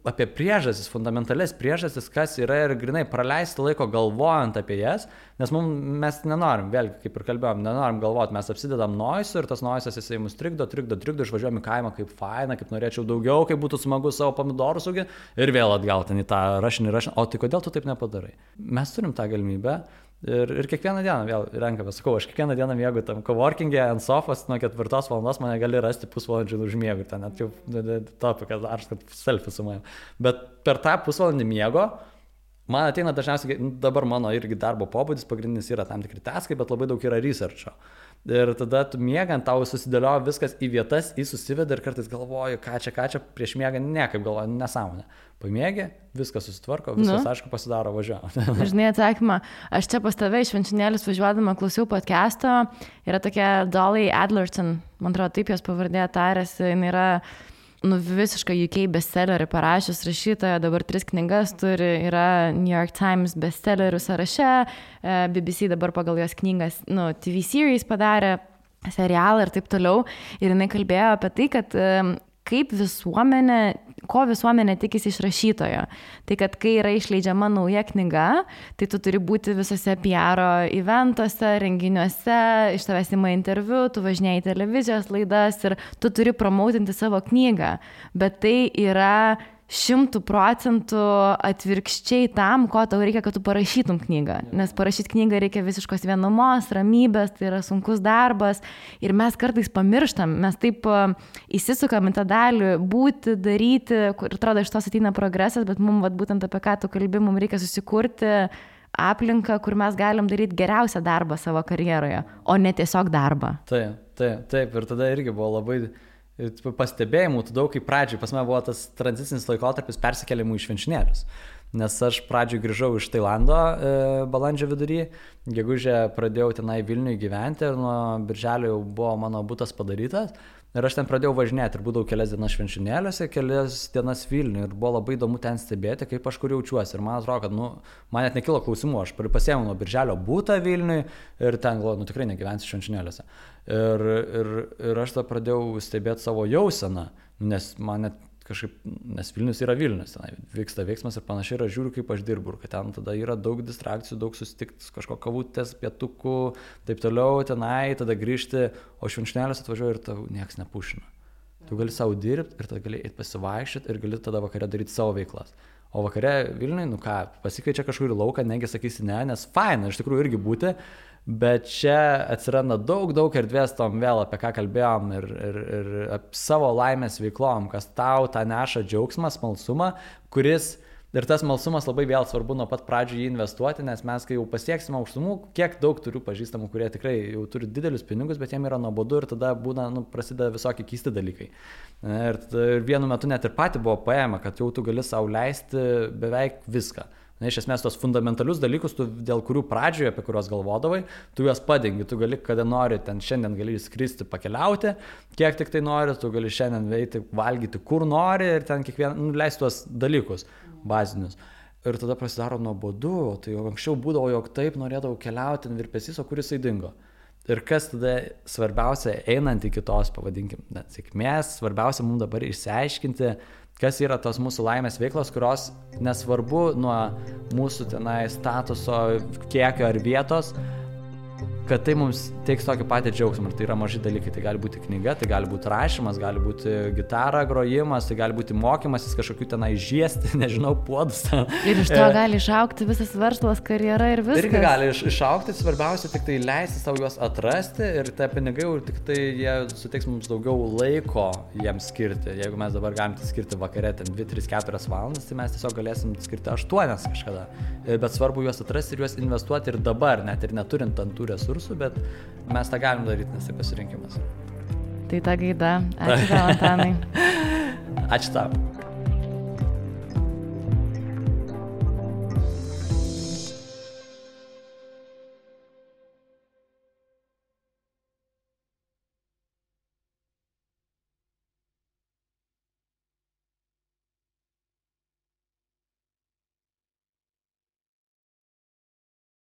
apie priežastis, fundamentalias priežastis, kas yra ir grinai praleisti laiko galvojant apie jas, nes mes nenorim, vėlgi, kaip ir kalbėjom, nenorim galvoti, mes apsidedam noisų ir tas noisas jisai mus trikdo, išvažiuojam į kaimą, kaip faina, kaip norėčiau daugiau, kaip būtų smagu savo pomidorus auginti ir vėl atgal ten į tą rašinį, o tai kodėl tu taip nepadarai? Mes turim tą galimybę. Ir kiekvieną dieną vėl renkame, sakau, aš kiekvieną dieną miegu tam coworking'e ant sofos, nuo 4 valandos mane gali rasti pusvalandžių užmiegu, ten net jau topikas, aš kad selfie su manim. Bet per tą pusvalandį miego, man ateina dažniausiai, dabar mano irgi darbo pobūdis, pagrindinis yra tam tikri taskai, bet labai daug yra researcho. Ir tada tu miegant, tau susidėlioja viskas į vietas, susiveda ir kartais galvoju, ką čia, prieš miegą niekaip galvoju, nesąmonė. Pamiegi, viskas susitvarko, viskas aišku pasidaro, važiuoja. Žinai atsakymą, aš čia pas tave iš Švenčionėlius važiuodama klausiau podcast'o, yra tokia Dolly Adlerton, man atrodo, taip jos pavardė tarėsi, jinai yra visiškai UK bestsellerį parašęs rašytoja, dabar 3 knygas turi, yra New York Times bestsellerių sąraše, BBC dabar pagal jos knygas, TV series padarė, serialą ir taip toliau. Ir jinai kalbėjo apie tai, kad ko visuomenė tikisi iš rašytojo. Tai kad kai yra išleidžiama nauja knyga, tai tu turi būti visose PR eventuose, renginiuose, iš tavęs ima interviu, tu važinėjai į televizijos laidas ir tu turi promautinti savo knygą. Bet tai yra 100% atvirkščiai tam, ko tau reikia, kad tu parašytum knygą. Nes parašyti knygą reikia visiškos vienumos, ramybės, tai yra sunkus darbas. Ir mes kartais pamirštam, mes taip įsisukam į tą dalį, būti, daryti, kur atrodo iš tos ateina progresas, bet mums būtent apie ką tu kalbi, mums reikia susikurti aplinką, kur mes galim daryti geriausią darbą savo karjeroje, o ne tiesiog darbą. Taip. Ir tada irgi buvo labai pastebėjimų, daug kaip pradžiai, pas mane buvo tas tranzicinis laikotarpis persikėlimų į švenčionėlius. Nes aš pradžiai grįžau iš Tailando balandžio vidury, gegužę pradėjau tenai Vilniuje gyventi ir nuo birželio jau buvo mano butas padarytas. Ir aš ten pradėjau važinėti ir būdavau kelias dienas švenčionėliuose, kelias dienas Vilniuje ir buvo labai įdomu ten stebėti, kaip aš kur jaučiuosi. Ir man atrodo, kad man net nekilo klausimų, aš pasiėmiau nuo birželio butą Vilniuje ir ten galvoju, tikrai negyvensiu švenčionėliuose. Ir aš tada pradėjau stebėti savo jauseną, nes man net kažkaip, nes Vilnius yra Vilnius, ten vyksta veiksmas ir panašiai, ir aš žiūriu, kaip aš dirbu, ir kad ten tada yra daug distrakcijų, daug susitikti, kažko kavutės, pietukų, taip toliau, tenai, tada grįžti, o švenčionėliuose atvažiuoju ir tau nieks nepušina. Tu gali savo dirbti ir tada gali eiti pasivaikščioti ir gali tada vakare daryti savo veiklas. O vakare Vilniuje, pasikeičia kažkur į lauką, negi sakysi ne, nes faina iš tikrųjų irgi būti, bet čia atsiranda daug erdvės tom vėl, apie ką kalbėjom ir savo laimės veiklom, kas tau tą neša džiaugsmą, smalsumą, kuris, ir tas smalsumas labai vėl svarbu nuo pat pradžių jį investuoti, nes mes, kai jau pasieksime aukštumų, kiek daug turiu pažįstamų, kurie tikrai jau turi didelius pinigus, bet jiem yra nuobodu ir tada būna, prasideda visokie keisti dalykai. Ir vienu metu net ir pati buvo paėma, kad jau tu gali sau leisti beveik viską. Iš esmės, tos fundamentalius dalykus, dėl kurių pradžioje, apie kuriuos galvodavai, tu juos padengi, tu gali, kada nori, ten šiandien gali skristi, pakeliauti, kiek tik tai nori, tu gali šiandien veikti, valgyti, kur nori ir ten kiekvieną, leisti tuos dalykus bazinius. Ir tada prasidaro nuobodu, tai jau anksčiau būdavo, jog taip norėdavau keliauti, virpesys, o kur jisai dingo. Ir kas tada svarbiausia, einant iki tos, pavadinkim, sėkmės, svarbiausia mums dabar išsiaiškinti, kas yra tos mūsų laimės veiklos, kurios nesvarbu nuo mūsų tenai statuso, kiekio ar vietos, kad tai mums teiks tokį patį džiaugsmą. Ir tai yra maži dalykai. Tai gali būti knyga, tai gali būti rašymas, gali būti gitara grojimas, tai gali būti mokymasis kažkokių tenai žiesti, nežinau, puodus. Ir iš to gali išaukti visas verslas, karjera ir viskas. Irgi gali išaukti, svarbiausia tik tai leisti savo juos atrasti ir tie pinigai, tik tai jie suteiks mums daugiau laiko jiems skirti. Jeigu mes dabar galim skirti vakare 2, 3, 4 valandas, tai mes tiesiog galėsim skirti 8 kažkada. Bet svarbu juos atrasti ir juos investuoti ir dabar, net ir neturint ant tų resursų, bet mes tą galim daryti, nes tai pasirinkimas. Tai ta gaida. Ačiū tau, Antanai. Ačiū tau.